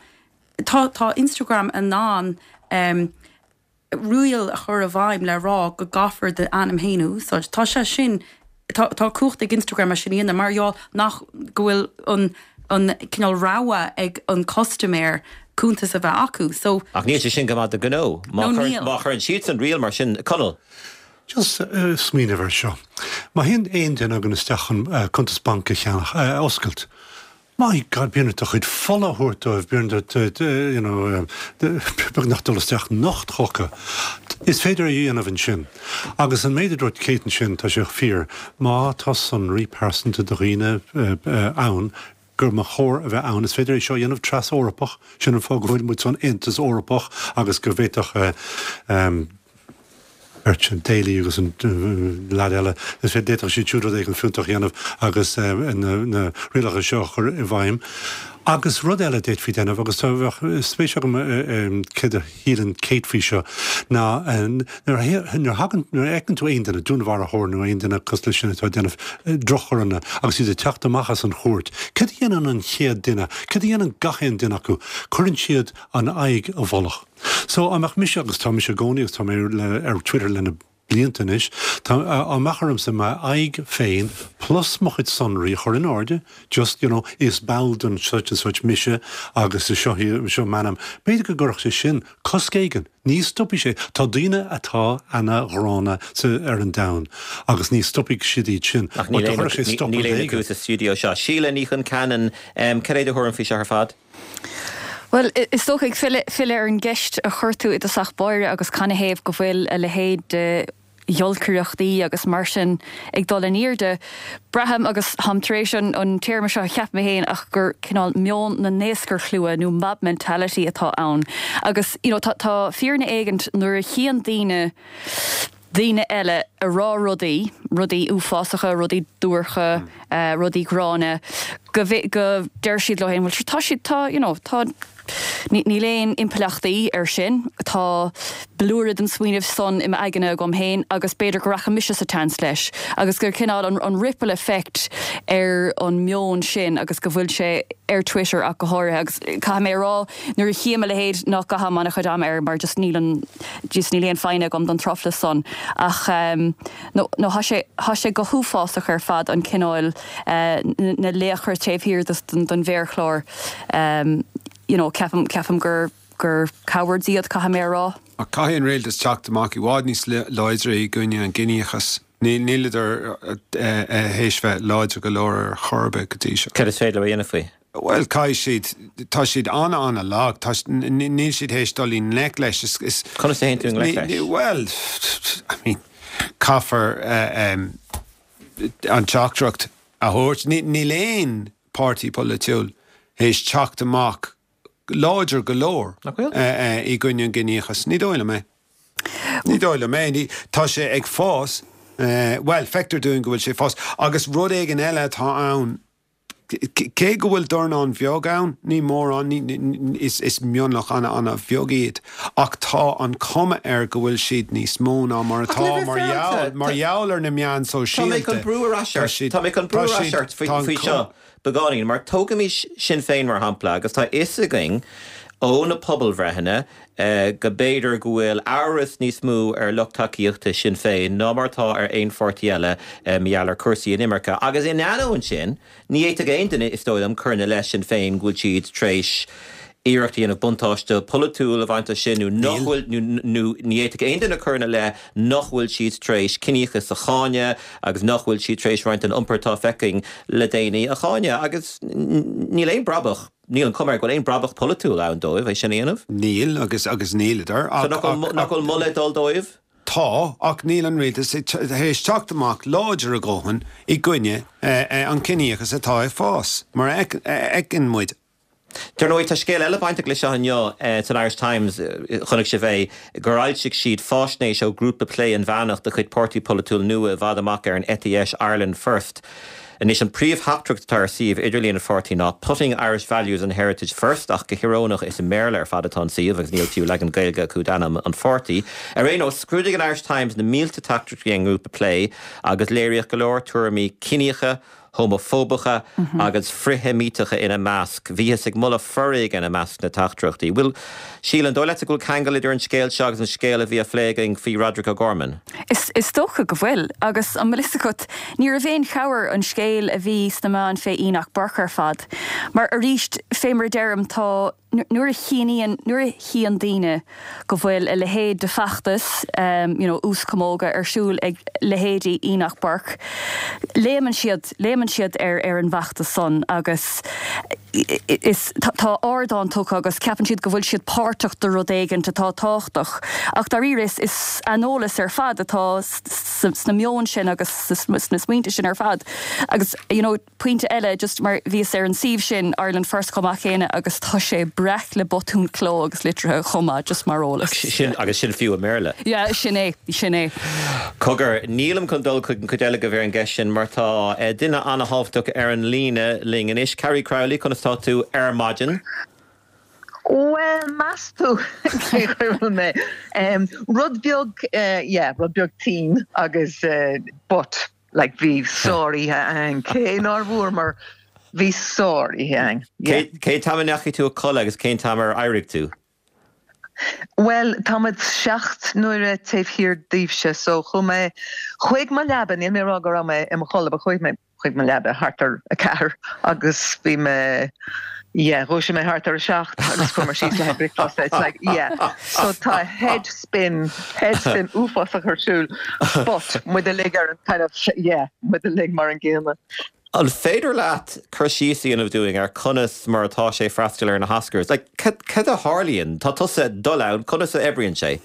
tá tá Instagram in ann um, riail a chur i bhfeidhm le rá go gcaithfear d'ainm féin a úsáid. Tá sé sin, tá tá cumhacht ag Instagram é sin a dhéanamh mar gheall nach go bhfuil an an cineál rogha ag an custaiméir cuntas a bheith acu. So. Ach níl sé sin go maith do ghnó. Má No, níl. má chuireann siadsan riail mar sin, Conall. Just smaoineamh air seo. Má théann aon duine againn isteach chun cuntas bainc a cheannach, a oscailt, my God, bíonn ort do chuid fola a thabhairt dóibh, bíonn ort, you know, beagnach dul isteach nocht chucu. Is féidir é a dhéanamh ansin. Agus an méid a dúirt Kate ansin, tá sé fíor, má tá sonraí pearsanta do dhaoine ann, gur mba chóir a bheith ann. Is féidir é seo a dhéanamh tras-Eorpach, sin an fáth go bhfuil muid san Aontas Eorpach agus go bhféadfadh beirt sin, Daly agus an leaid eile, is féidir, d'fhéadfadh siad siúd rud éigin fiúntach a dhéanamh agus na rialacha seo a chur i bhfeidhm. Agus rud eile a d'fhéadfaí déanamh, agus tá, bheadh spéis agam céard a shíleann Kate faoi seo, ná nuair a thagann, nuair a fheiceann tú aon duine, dúnmharfóir nó aon duine cosúil leis sin atá ag déanamh droch-choireanna agus iad ag teacht amach as an chúirt, céard a dhéanann an chéad duine, céard a dhéanann gach aon duine acu? Cuireann siad an aghaidh i bhfolach. So, dá mbeadh mise, agus tá mise i gcónaí agus tá mé ar Twitter le na blianta anois, tá, dá mbeadh ormsa m'aghaidh féin plus mo chuid sonraí a chur in airde, just, you know, is ball den such and such mise agus is seo, seo m'ainm, b'fhéidir go gcuirfeadh sé sin cosc éigin, ní stopfaidh sé, tá daoine atá ana-ghránna sa, ar an domhan agus ní stopfaidh siad iad sin, Ach níl aon, níl aon acu sa stiúideo seo. Síle Ní Chonceanainn, cad é do thuairim faoi seo ar fad? Bhuel, is dócha, ag filleadh ar an gceist a chuir tú i dtosach báire agus canathaobh go bhfuil a leithéid de ghiolcaireachtaí agus mar sin ag dul in airde, braithim, agus táim tar éis an téarma seo a cheapadh mé féin, ach gur cineál meon na ndaoscarshlua nó mob mentality atá ann. Agus, you know, tá fírinne éigint nuair a chíonn daoine, daoine eile ag rá rudaí, rudaí uafásacha, rudaí duairce, rudaí gránna, go, go deir siad leo féin, bhuel, tá siad, tá, you know, tá, níl aon impleachtaí air sin, tá blúire den smaoineamh san i m'aigne agam féin agus b'fhéidir go rachaidh mise sa tseans leis agus gur cineál an, an ripple effect ar an meon sin agus go bhfuil sé ar Twitter ach go háirithe agus caithfidh mé a rá, Nuair a chím a leithéid nach gcaithim an-chuid ama air mar just níl an, just níl aon foighne agam don truflais san. Ach no, no thá sé, thá sé go huafásach ar fad an cineál, na laochra taobh thiar den mhéarchlár. You know, ceapaim, ceapaim gur, gur cowards iad, caithfidh mé a rá. Ach caithfidh an rialtas teacht amach i bhfad níos láidre i gcoinne an gciníochas. Níleadar théis bheith láidir go leor ar chor ar bith go dtí seo. Cad is féidir leo a dhéanamh faoi? Bhuel, caithfidh siad, tá siad an-an-lag, tá, níl siad théis dul i ngleic leis. Is, Conas a théann tú i ngleic leis? Bhuel, I mean, caithfear an teachtaireacht a thabhairt. Níl aon páirtí polaitiúil théis teacht amach láidir go leor i gcoinne an gciníochais. Ní dóigh liom é. Ní dóigh liom é. Tá sé ag fás. Bhuel, feictear dúinn go bhfuil sé ag fás. Agus rud éigin eile atá ann, cé go bhfuil dornán bheag ann, ní mórán, is mionlach an-an-bheag iad, ach tá an chuma air go bhfuil siad níos mó ná mar atá mar gheall, mar gheall ar na meáin sóisialta. Tá mé chun brú ar ais ort, tá mé chun brú ar ais ort faoi seo. Beagáinín, mar tógaimis Sinn Féin mar shampla, agus tá a fhios againn ó na pobalbhreitheanna go mb'fhéidir go bhfuil amhras níos mó ar lucht tacaíochta Sinn Féin ná mar atá ar aon pháirtí eile mar gheall ar chúrsaí inimirce. Agus in ainneoin sin, ní fhéadfadh aon duine, is dóigh liom, cur ina leith Sinn Féin go bhfuil siad tar éis iarracht a dhéanamh buntáiste polaitiúil a bhaint as sin nó nach bhfuil, nó ní fhéadfadh aon duine cur ina leith nach bhfuil siad tar éis ciníochas a cháineadh agus nach bhfuil siad tar éis roinnt den iompar atá feicthe againn le déanaí a cháineadh. Agus níl aon brabach, níl an chuma air go bhfuil aon brabach polaitiúil ann dóibh é sin a dhéanamh. Níl, agus agus níleadar ach. So nach bhfuil moladh ag dul dóibh? Tá, ach níl an rialtas théis teacht amach láidir a dhóthain i gcoinne an chiníochas atá ag fás, mar a fheiceann muid. Dar ndóigh, tá scéal eile bainteach leis seo inniu san Irish Times, chonaic sibh é, gur fhoilsigh siad faisnéis ó ghrúpa plé inmheánach de chuid páirtí polaitiúil nua i bhfad amach ar an eite dheis, Ireland First. Anois, an príomhtheachtaireacht atá ar suíomh idirlíon an pháirtí ná 'Putting Irish Values and Heritage First' ach go híorónach is i mBéarla ar fad atá an suíomh agus níl fiú leagan Gaeilge acu d'ainm an pháirtí. Ar aon nós, scrúdaigh an Irish Times na mílte teachtaireachtaí ón ngrúpa plé agus léiríodh go leor tuairimí ciníocha, homafóbacha agus frith-Sheimíteacha ina measc. Bhíothas ag moladh foréigin i measc na dteachtaireachtaí. Bhuel, Síle, an dóigh leatsa go bhfuil ceangal idir an scéal seo agus an scéal a bhí á phlé againn faoi Roderic O'Gorman? Is dócha go bhfuil. Agus an bhfuil fhios agat, ní raibh aon chabhair an scéal a bhí sna meáin fé Enoch Burke ar fad. Mar arís, fé mar a deirim, tá. Nuair a chíonn, nuair a chíonn daoine go bhfuil a leithéid de feachtas, you know, ús camóga ar siúl ag leithéidí Enoch Burke, léimeann siad, léimeann siad ar, ar an bhfeachtas san agus is, tá, tá ardán tugtha agus ceapann siad go bhfuil siad páirteach de rud éigint atá tábhachtach. Ach dáiríre is, is aineolas ar fad atá sna meoin sin agus sna smaointe sin ar fad. Agus, you know, Pointe eile, just mar bhíos ar an suíomh sin, Ireland First chomh maith céanna agus tá sé breac le botúin cló agus litrithe chomh maith, just mar eolas. Sin, agus sin fiú i mBéarla. Yeah, sin é, sin é. Cogar, nílim chun dul chuig an chuid eile de ar an gceist sin mar tá duine an-thábhachtach ar an líne linn anois. Carrie Crowley, conas tá tú ar maidin? Bhuel, meas tú cén chaoi a bhfuil mé? Rud beag, yeah, rud beag tinn agus but. Like bhí sár-oíche againn, cé nár bhuamar, bhí sár-oíche againn, yeah. Cén t-am a ndeachaigh tú a codladh agus cén t-am ar éirigh tú? Bhuel, tá muid seacht n-uaire taobh thiar daoibhse, so chuaigh mé chuig mo leaba, níl mé ag rá go raibh mé i mo chodladh, but chuaigh mé chuig mo leaba thart ar a ceathair agus bhí mé, yeah, dhúisigh mé thart ar a seacht agus chuamar síos le haghaidh bricfeasta, it's like, yeah. So tá head spin, head spin uafásach ar siúl but muid uilig ar an kind of, yeah, muid uilig mar an gcéanna. An féidir leat cur síos a dhéanamh dúinn ar conas mar atá sé freastal ar na hOscars? Like, cad a tharlaíonn? Tá tusa ag dul ann, conas a oibríonn sé?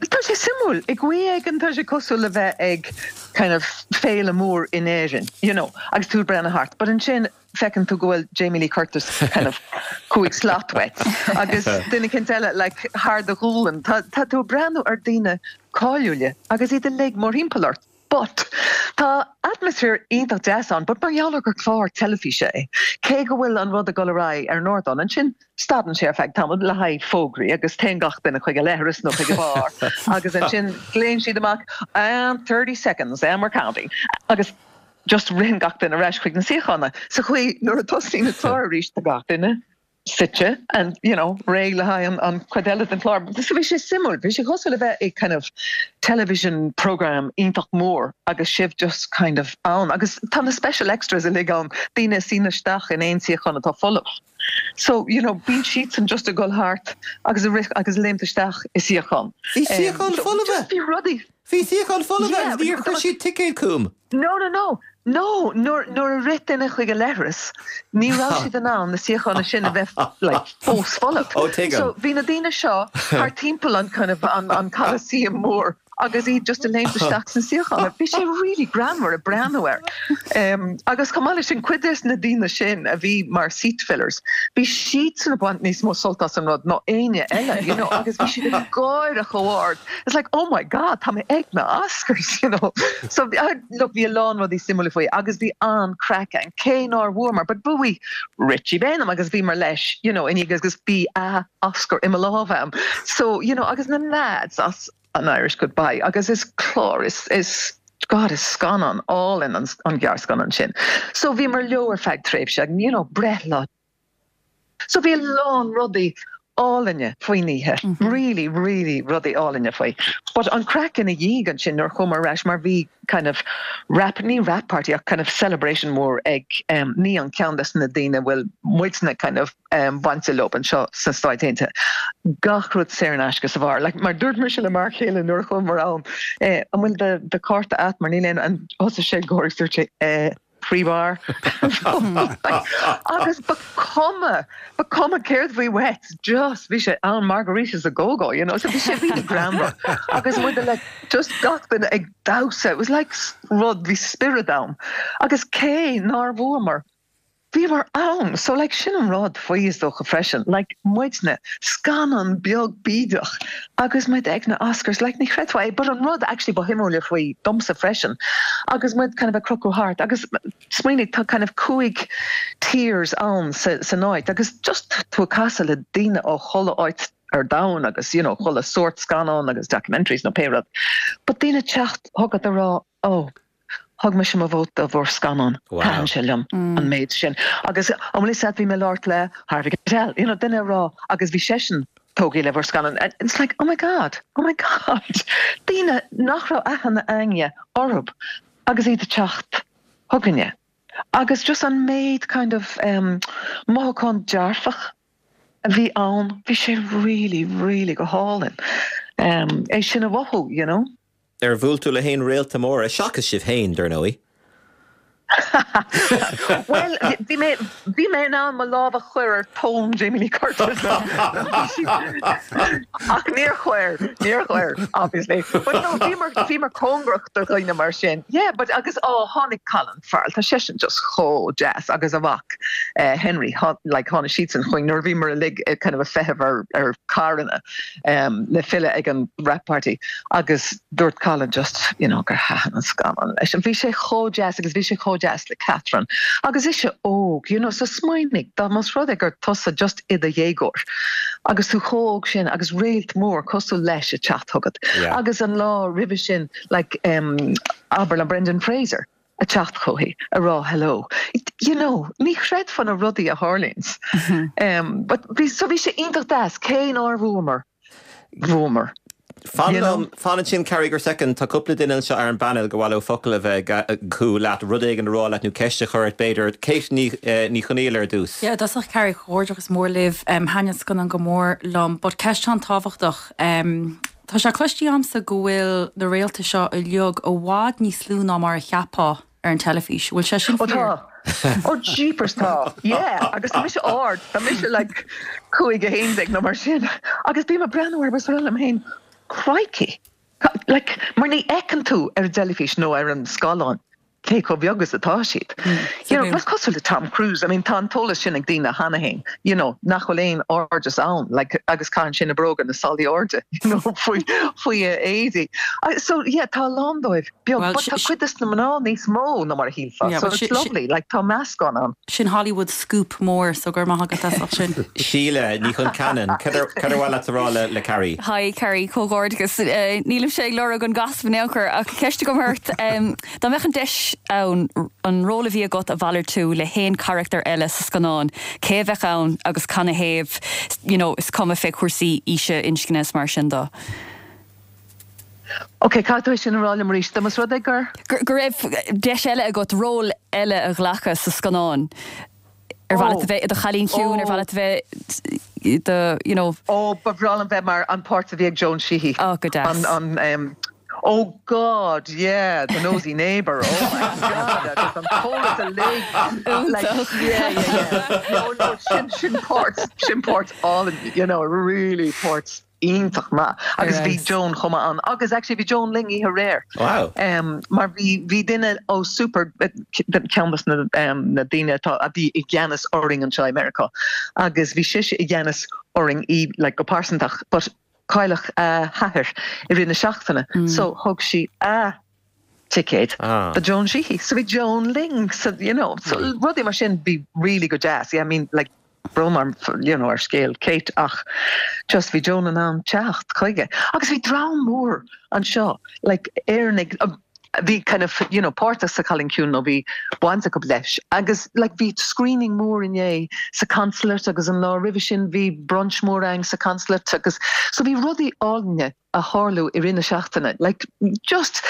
Tá sé suimiúil. I gcaoi éigin tá sé cosúil le bheith ag kind of féile mór in Éirinn, you know, agus tú ag breathnú thart. But ansin feiceann tú go bhfuil Jamie Lee Curtis kind of cúig slat uait agus duine eicínt eile like thar do ghualainn. Tá tá tú ag breathnú ar daoine cáiliúla agus iad uilig mórthimpeall ort. But tá atmaisféar iontach deas ann but mar gheall ar gur clár teilifíse é, cé go bhfuil an rud ag dul ar aghaidh ar an ardán, ansin stadann sé ar feadh tamaill le haghaidh fógraí agus téann gach duine chuig a leithreas nó chuig an bheár agus ansin glaonn siad amach and 30 seconds and we're counting agus just ritheann gach duine ar ais chuig na suíocháin. Sa chaoi nuair a tosaíonn an clár arís tá gach duine suite and you know réidh le haghaidh an an chuid eile den chlár. So bhí sé suimiúil, bhí sé cosúil le bheith i kind of television program iontach mór agus sibh just kind of ann agus tá na special extras uilig ann, daoine a suíonn isteach in aon suíochán atá folamh. So you know bíonn siadsan just ag dul thart agus ag rith agus ag léimt isteach i suíochán. Bhí suíocháin folmha! Just bhí rudaí. Bhí suíocháin folamh Yeah, agus níor chuir siad ticéad chugam. No, no, no. No, nuair, nuair a rith duine chuig a leithreas, ní raibh siad in ann na suíocháin sin a bheith like, fós folamh. Ó, tuigim. So bhí na daoine seo thart timpeall an kind of an, an Coliseum mór agus iad just ag léimt isteach sna suíocháin. Bhí sé really greannmhar ag breathnú air. Um, agus chomh maith leis sin, cuid des na daoine sin a bhí mar seat fillers, bhí siadsan ag baint níos mó sult as an rud ná éinne eile, you know, agus bhí siad ag gáire chomh hard. It's like, oh my God, tá mé ag na Oscars, you know. So, look, bhí a lán rudaí suimiúla faoi agus bhí an-craic ann, cé nár bhuamar, but bhuaigh Richie Baneham agus bhíomar leis, you know, inniu agus bhí a Oscar i mo lámh a'm. So, you know, agus na lads as An Irish Goodbye agus is clár, is, is, God, is scannán álainn an, an gearrscannán sin. So bhíomar leo ar feadh tréimhse, you know, breithlá So bhí a lán rudaí álainne faoin oíche, really, really rudaí álainne faoi. But an craic ina dhiaidh ansin nuair a chuamar ar ais mar bhí kind of wrap, ní wrap party ach kind of celebration mór ag um, ní an ceann des na daoine a bhfuil muidne kind of um, bainte leo anseo sna Stáit Aontaithe. Gach rud saor in aisce sa bheár. Like, mar dúirt mise le m'fhear céile nuair a chuamar ann, eh, an bhfuil do, do cárta a't mar níl aon, an thosaigh sé ag gáire agus dúirt sé, eh, free bar agus ba cuma ba cuma céard bhí uait just bhí sé ann margaritas a go go you know so bhí sé really greannmhar agus muid like just gach duine ag damhsa it was like rud bhí spiorad ann agus cé nár bhuamar bhíomar ann so like sin an rud faoi is dócha freisin like muidne scannán beag bídeach agus muid ag na Oscars like ní chreidfeá é but an rud actually ba shuimiúla faoi domsa freisin agus muid kind of ag crochadh thart agus smaoinigh tá kind of cúig tiers ann sa san áit agus just tú ag casadh le daoine ó chuile áit ar domhan agus you know chuile sórt scannán agus documentaries nó pé rud but daoine teacht chugat a rá oh Thug mise mo vóta do bhur scannán. Thaitin sé liom an méid sin. Agus an bhfuil fhios a't bhí mé ag labhairt le Harvey Keitel, you know, duine a rá agus bhí seisean tógtha le bhur scannán. And it's like, oh my God, oh my God. Daoine nach raibh aithne a'inne orthu agus iad ag teacht chugainne. Agus just an méid kind of em mothúchán dearfach a bhí ann, bhí sé really, really go hálainn em é sin a mhothú, you know. Ar bhuail tú le haon réalta móra, seachas sibh féin, dar ndóigh? Bhuel, bhí mé, bhí mé in ann mo lámh a chur ar thóin Jamie Lee Curtis. Ach níor chuir, níor chuir, obviously. But no, bhíomar, bhíomar cóngarach do dhaoine mar sin. Yeah, but agus, oh, tháinig Colin Farrell, tá seisean just chomh deas agus a mhac Henry, like tháinig siadsan chugainn nuair a bhíomar uilig kind of ag feitheamh ar, ar carranna le filleadh ag an wrap party agus dúirt Colin just, you know, gur thaitin an scannán leis. Bhí sé chomh deas agus bhí sé chomh deas le Catherine agus ise óg, you know, so smaoinigh dá más rud é gur tusa just i do dhéagóir agus tú chomh óg sin agus réalt mór cosúil leis ag teacht chugat agus an lá roimhe sin like um, abair le Brendan Fraser ag teacht chuici a rá hello. You know, ní chreidfeá na rudaí a tharlaíonns. Um, but bhí, so bhí sé iontach deas, cé nár bhuamar, bhuamar. Fan liom, fan ansin Carrie go soicind, tá cúpla duine anseo ar an bpainéal gur mhaith leo focal a bheith acu leat, rud éigin a rá leat nó ceist a chur ort b'fhéidir. Kate Ní, Ní Chonaill ar dtús. Yeah, i dtosach Carrie, comhghairdeachas mór libh. Um, Thaitin an scannán go mór liom, but ceist an-tábhachtach. Um, Tá sé cloiste agamsa go bhfuil na réalta seo uilig i bhfad níos lú ná mar a cheapfá ar an teilifís. Bhfuil sé sin fíor? Ó tá. Ó jeepers tá. Yeah. Agus tá mise ard. Tá mise like 5 11 nó mar sin. Agus bím ag breathnú orthu is ag rá liom féin, crikey. Like, mar ní fheiceann tú ar an dteilifís nó ar an scáileán. cé chomh beag is atá siad. You know, is cosúil le Tom Cruise, I mean tá an t-eolas sin ag daoine cheana féin, you know, nach bhfuil aon airdeas ann, like, agus caitheann sé na bróga na salaí airde, you know, faoi, faoi a éadaí. So, yeah, tá a lán dóibh beag, but tá cuid des na mná níos mó ná mar a shílfeá, so it's lovely, like, tá meascán ann. Sin Hollywood scoop mór, so go raibh maith agat as sin. Síle Ní Chonceanainn, cad ar mhaith leat a rá le Carrie? Hi Carrie, comhghairdeachas. Nílimse ag lorg an gossip in aon chor ach ceist agam ort. Dá mbeadh an deis ann an ról a bhí agat a mhalartú le haon charachtar eile sa scannán, cé a bheadh ann agus canathaobh, you know, is cuma fé chúrsaí aoise, inscne is mar sin de. Ok, caithfidh tú é sin a rá liom arís, dá más rud é gur. Go raibh deis eile agat ról eile a ghlacadh sa scannán. Ar mhaith leat a bheith i do chailín ciúin, ar mhaith leat a bheith i do, you know. Ó, ba bhreá liom bheith mar an páirt a bhí ag Joan Sheehy. Oh, go deas. An, an, oh God, yeah, the nosy neighbour, oh my God, agus an t-eolas uilig. Iontach. Yeah, yeah, yeah. No, no, sin, sin páirt, sin páirt álainn, you know, really páirt. iontach maith agus bhí Joan chomh maith ann agus actually bhí Joan linn oíche aréir. Wow. Mar bhí bhí duine ó Super ceann de na na daoine atá a bhí i gceannas orainn anseo i Meiriceá agus bhí sise i gceannas orainn í like go pearsantach but cailleadh a hathair i rith na seachtaine so thug sí a ticéad do Joan Sheehy. So bhí Joan linn so you know so rudaí mar sin bhí really go deas. Yeah I mean like brón orm you know ar scéal Kate ach just bhí Joan in ann teacht chuige. Agus bhí dream mór anseo like Éireannaigh a bhí kind of you know páirteach sa Chailín Ciúin nó bhí baint acu leis agus like bhí screening mór inné sa consulate agus an lá roimhe sin bhí brunch mór ann sa consulate agus so bhí rudaí álainne a tharlú i rith na seachtaine like just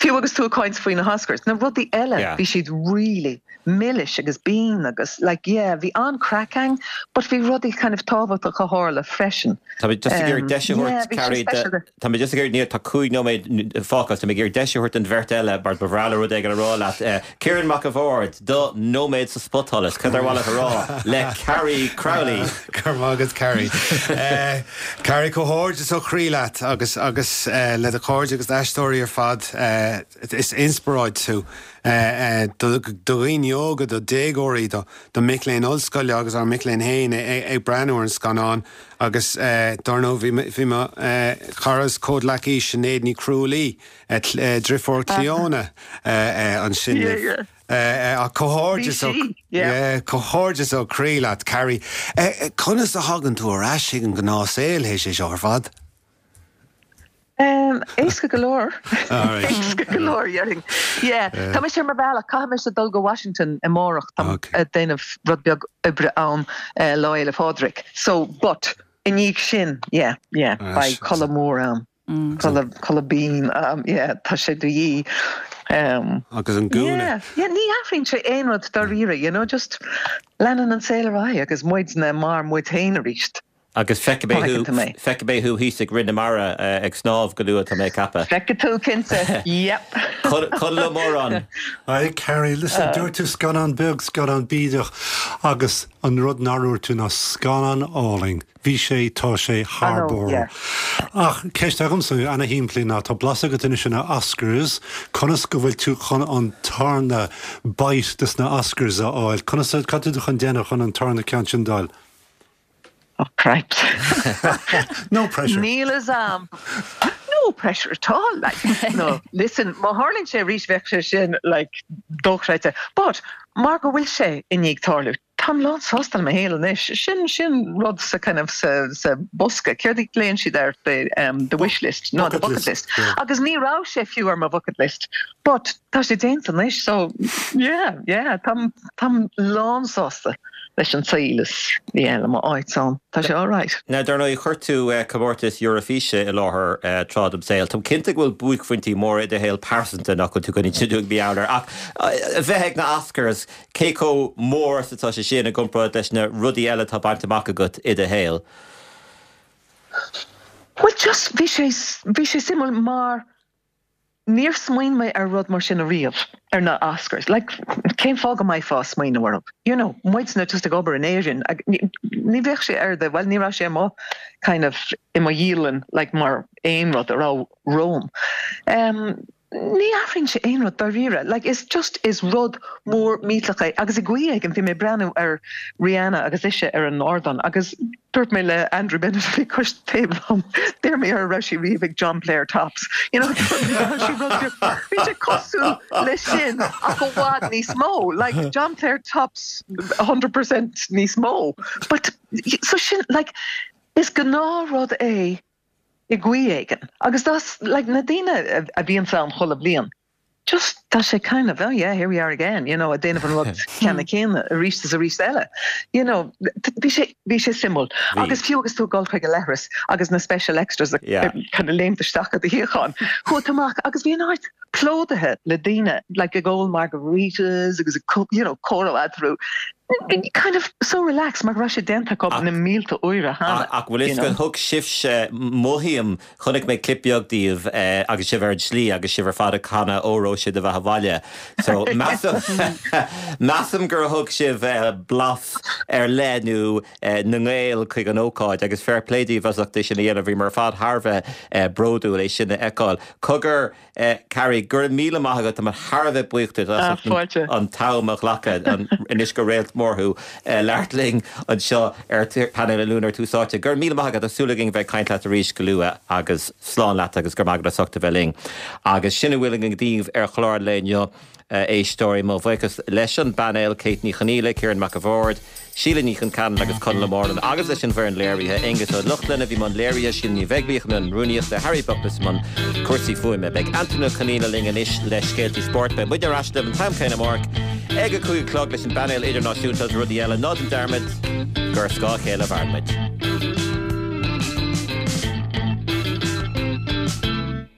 fiú agus tú ag caint faoi na hOscars na rudaí eile bhí siad really milis agus binn agus like yeah bhí an-craic ann but bhí rudaí kind of tábhachtach a tharla freisin. Tá mé just ag iarraidh deis a thabhairt Carrie Tá mé just ag iarraidh níl tá 5 nóiméad fágtha tá mé ag iarraidh deis a thabhairt don bheirt eile mar ba bhreá leo rud éigin a rá leat. Ciarán Mac a' Bhaird, do nóiméad sa spotsholas, cad ar mhaith leat a rá le Carrie Crowley? Go raibh maith agat Carrie. Carrie, comhghairdeas ó chroí leat agus agus le do chairde agus d'aisteoirí ar fad. Is inspioráid tú do dhaoine óga, do dhéagóirí, do mic léinn ollscoile agus ár mic léinn féin ag breathnú ar an scannán agus dar ndóigh bhí mo chara is comhghleacaí Sinéad Ní Chrualaoi Driofúr Clíona ansin libh. Ach comhghairdeas ó comhghairdeas ó chroí leat, Carrie. Conas a thagann tú ar ais chuig an ngnáthshaol théis é seo ar fad? Éasca go leor. Éasca go leor, déarfainn. Yeah. Tá mise ar mo bhealach, caithfidh mise dul go Washington amárach, táim ag déanamh rud beag oibre ann Lá Fhéile Pádraig. So, but, i ndiaidh sin, yeah, yeah, beidh codladh mór ann. Codladh, codladh binn, yeah, tá sé de dhíth. Um, Agus an gúna. Yeah, yeah, ní athraíonn sé aon rud dáiríre, you know, just leanann an saol ar aghaidh agus muidne mar muid féin arís. Agus feicfidh mé thú, Feicfidh tú mé. feicfidh mé thú thíos ag Rith na Mara ag snámh go luath, tá mé ag ceapadh. Feicfidh tú, cinnte, yep. Conall Ó Móráin. Hi Carrie, listen, dúirt tú scannán beag, scannán bídeach agus an rud nár dhúirt tú ná scannán álainn. Bhí sé, tá sé thar barr. Ach ceist agamsa, ana-shimplí, ná tá blas agat anois ar na Oscars, conas go bhfuil tú chun an tarna bite des na Oscars a fháil? Conas, cad tá tú chun déanamh chun an tarna ceann sin d'fháil? Oh cripes. No pressure. Níl a fhios a'm. No pressure at all, like. No, listen, má tharlaíonn sé arís bheadh sé sin, like, dochreidte. But, mar go bhfuil sé i ndiaidh tarlú, táim lán sásta le mo shaol anois. Sin, sin rud sa kind of, sa, sa bosca, céard a ghlaonn siad air, the, um, the wish list, no, the bucket list. Agus ní raibh sé fiú ar mo bhucket list. But, tá sé déanta anois, so, yeah, yeah, táim, táim lán sásta. leis an saol is yeah le mo áit ann. Tá sé alright. Now, dar ndóigh, chuir tú comórtas Eurofíse i láthair tráth dem saol. Táim cinnte go bhfuil buaicphointí móra i do shaol pearsanta nach bhfuil tú chun inse dúinn mar gheall air. Ach a bheith ag na Oscars, cé chomh mór is atá sé sin i gcomparáid leis na rudaí eile atá bainte amach agat i do shaol? Bhuel, just, bhí sé, bhí sé suimiúil mar Níor smaoin mé ar rud mar sin ariamh, ar na Oscars. Like, cén fáth go mbeifeá ag smaoineamh orthu? You know, muidne just ag obair in Éirinn, ní bheadh sé ar the, bhuel, ní raibh sé i mo kind of, i mo dhialann, like, mar aon rud a raibh romham. Um, ní athraíonn sé aon rud dáiríre. Like, is just, is rud mór millteach é. Agus i gcaoi éigin, bhí mé ag breathnú ar Rihanna agus ise ar an ardán agus Dúirt mé le Andrew Bennett a bhí cois taobh liom, d'iarr mé air an raibh sé riamh ag John Player Tops. You know, dúirt mé go raibh sé rud beag, bhí sé cosúil leis sin ach i bhfad níos mó, like John Player Tops 100% níos mó. But, so sin, like, is gnáthrud é i gcaoi éigin. Agus that's, like, na daoine a bhíonns ann chuile bhliain, just tá sé kind of oh yeah here we are again you know ag déanamh an rud ceanna céanna arís is arís eile you know bhí sé bhí sé suimiúil agus fiú agus tú ag dul chuig an leithreas agus na special extras kind of léimt isteach i do shuíochán chuaigh tú amach agus bhí an áit plódaithe le daoine like ag ól margaritas agus you know comhrá eatarthu kind of so relaxed mar go raibh sé déanta acu na mílte uaire cheana. Ach bhfuil fhios agat thug sibhse mothaím Chonaic mé clip beag díobh agus sibh ar an tslí agus sibh ar fad ag canadh Óró Sé do Bheatha 'Bhaile. So measaim measaim gur thug sibh blas ar leith nó na nGael chuig an ócáid agus fair play daoibh as ucht é sin a dhéanamh. Bhíomar ar fad thar a bheith bródúil é sin a fheiceáil. Cogar Carrie, go raibh míle maith agat, tá mé thar a bheith buíoch duit as ucht an t-am a ghlacadh, anois gur réalt mór thú, labhairt linn anseo ar Painéal an Luain ar Tús Áite. Go raibh míle maith agat, tá súil againn a bheith ag caint leat arís go luath agus slán leat agus go raibh maith agat as ucht a bheith linn. Agus sin a bhfuil againn daoibh ar chlár an lae inniu. A éisteoirí, mo bhuíochas leis an bpainéal, Kate Ní Chonghaile, Ciarán Mac a' Bhaird, Síle Ní Chonceanainn agus Conall Ó Mórláin agus leis an bhfoireann léirithe, Aonghus Ó Lochlainn a bhí i mbun léirithe, Síle Ní Bheaglaoich i mbun rúnaíochta, Harry Buckless i mbun cúrsaí fuaime. Beidh Antaine Ó Conghaile linn anois le scéaltaí spóirt. Beidh muid ar ais libh an t-am céanna amárach ag a 5 a chlog leis an bpainéal idirnáisiúnta agus rudaí eile. Ná déan dearmad gur ar scáth a chéile a mhaireann muid.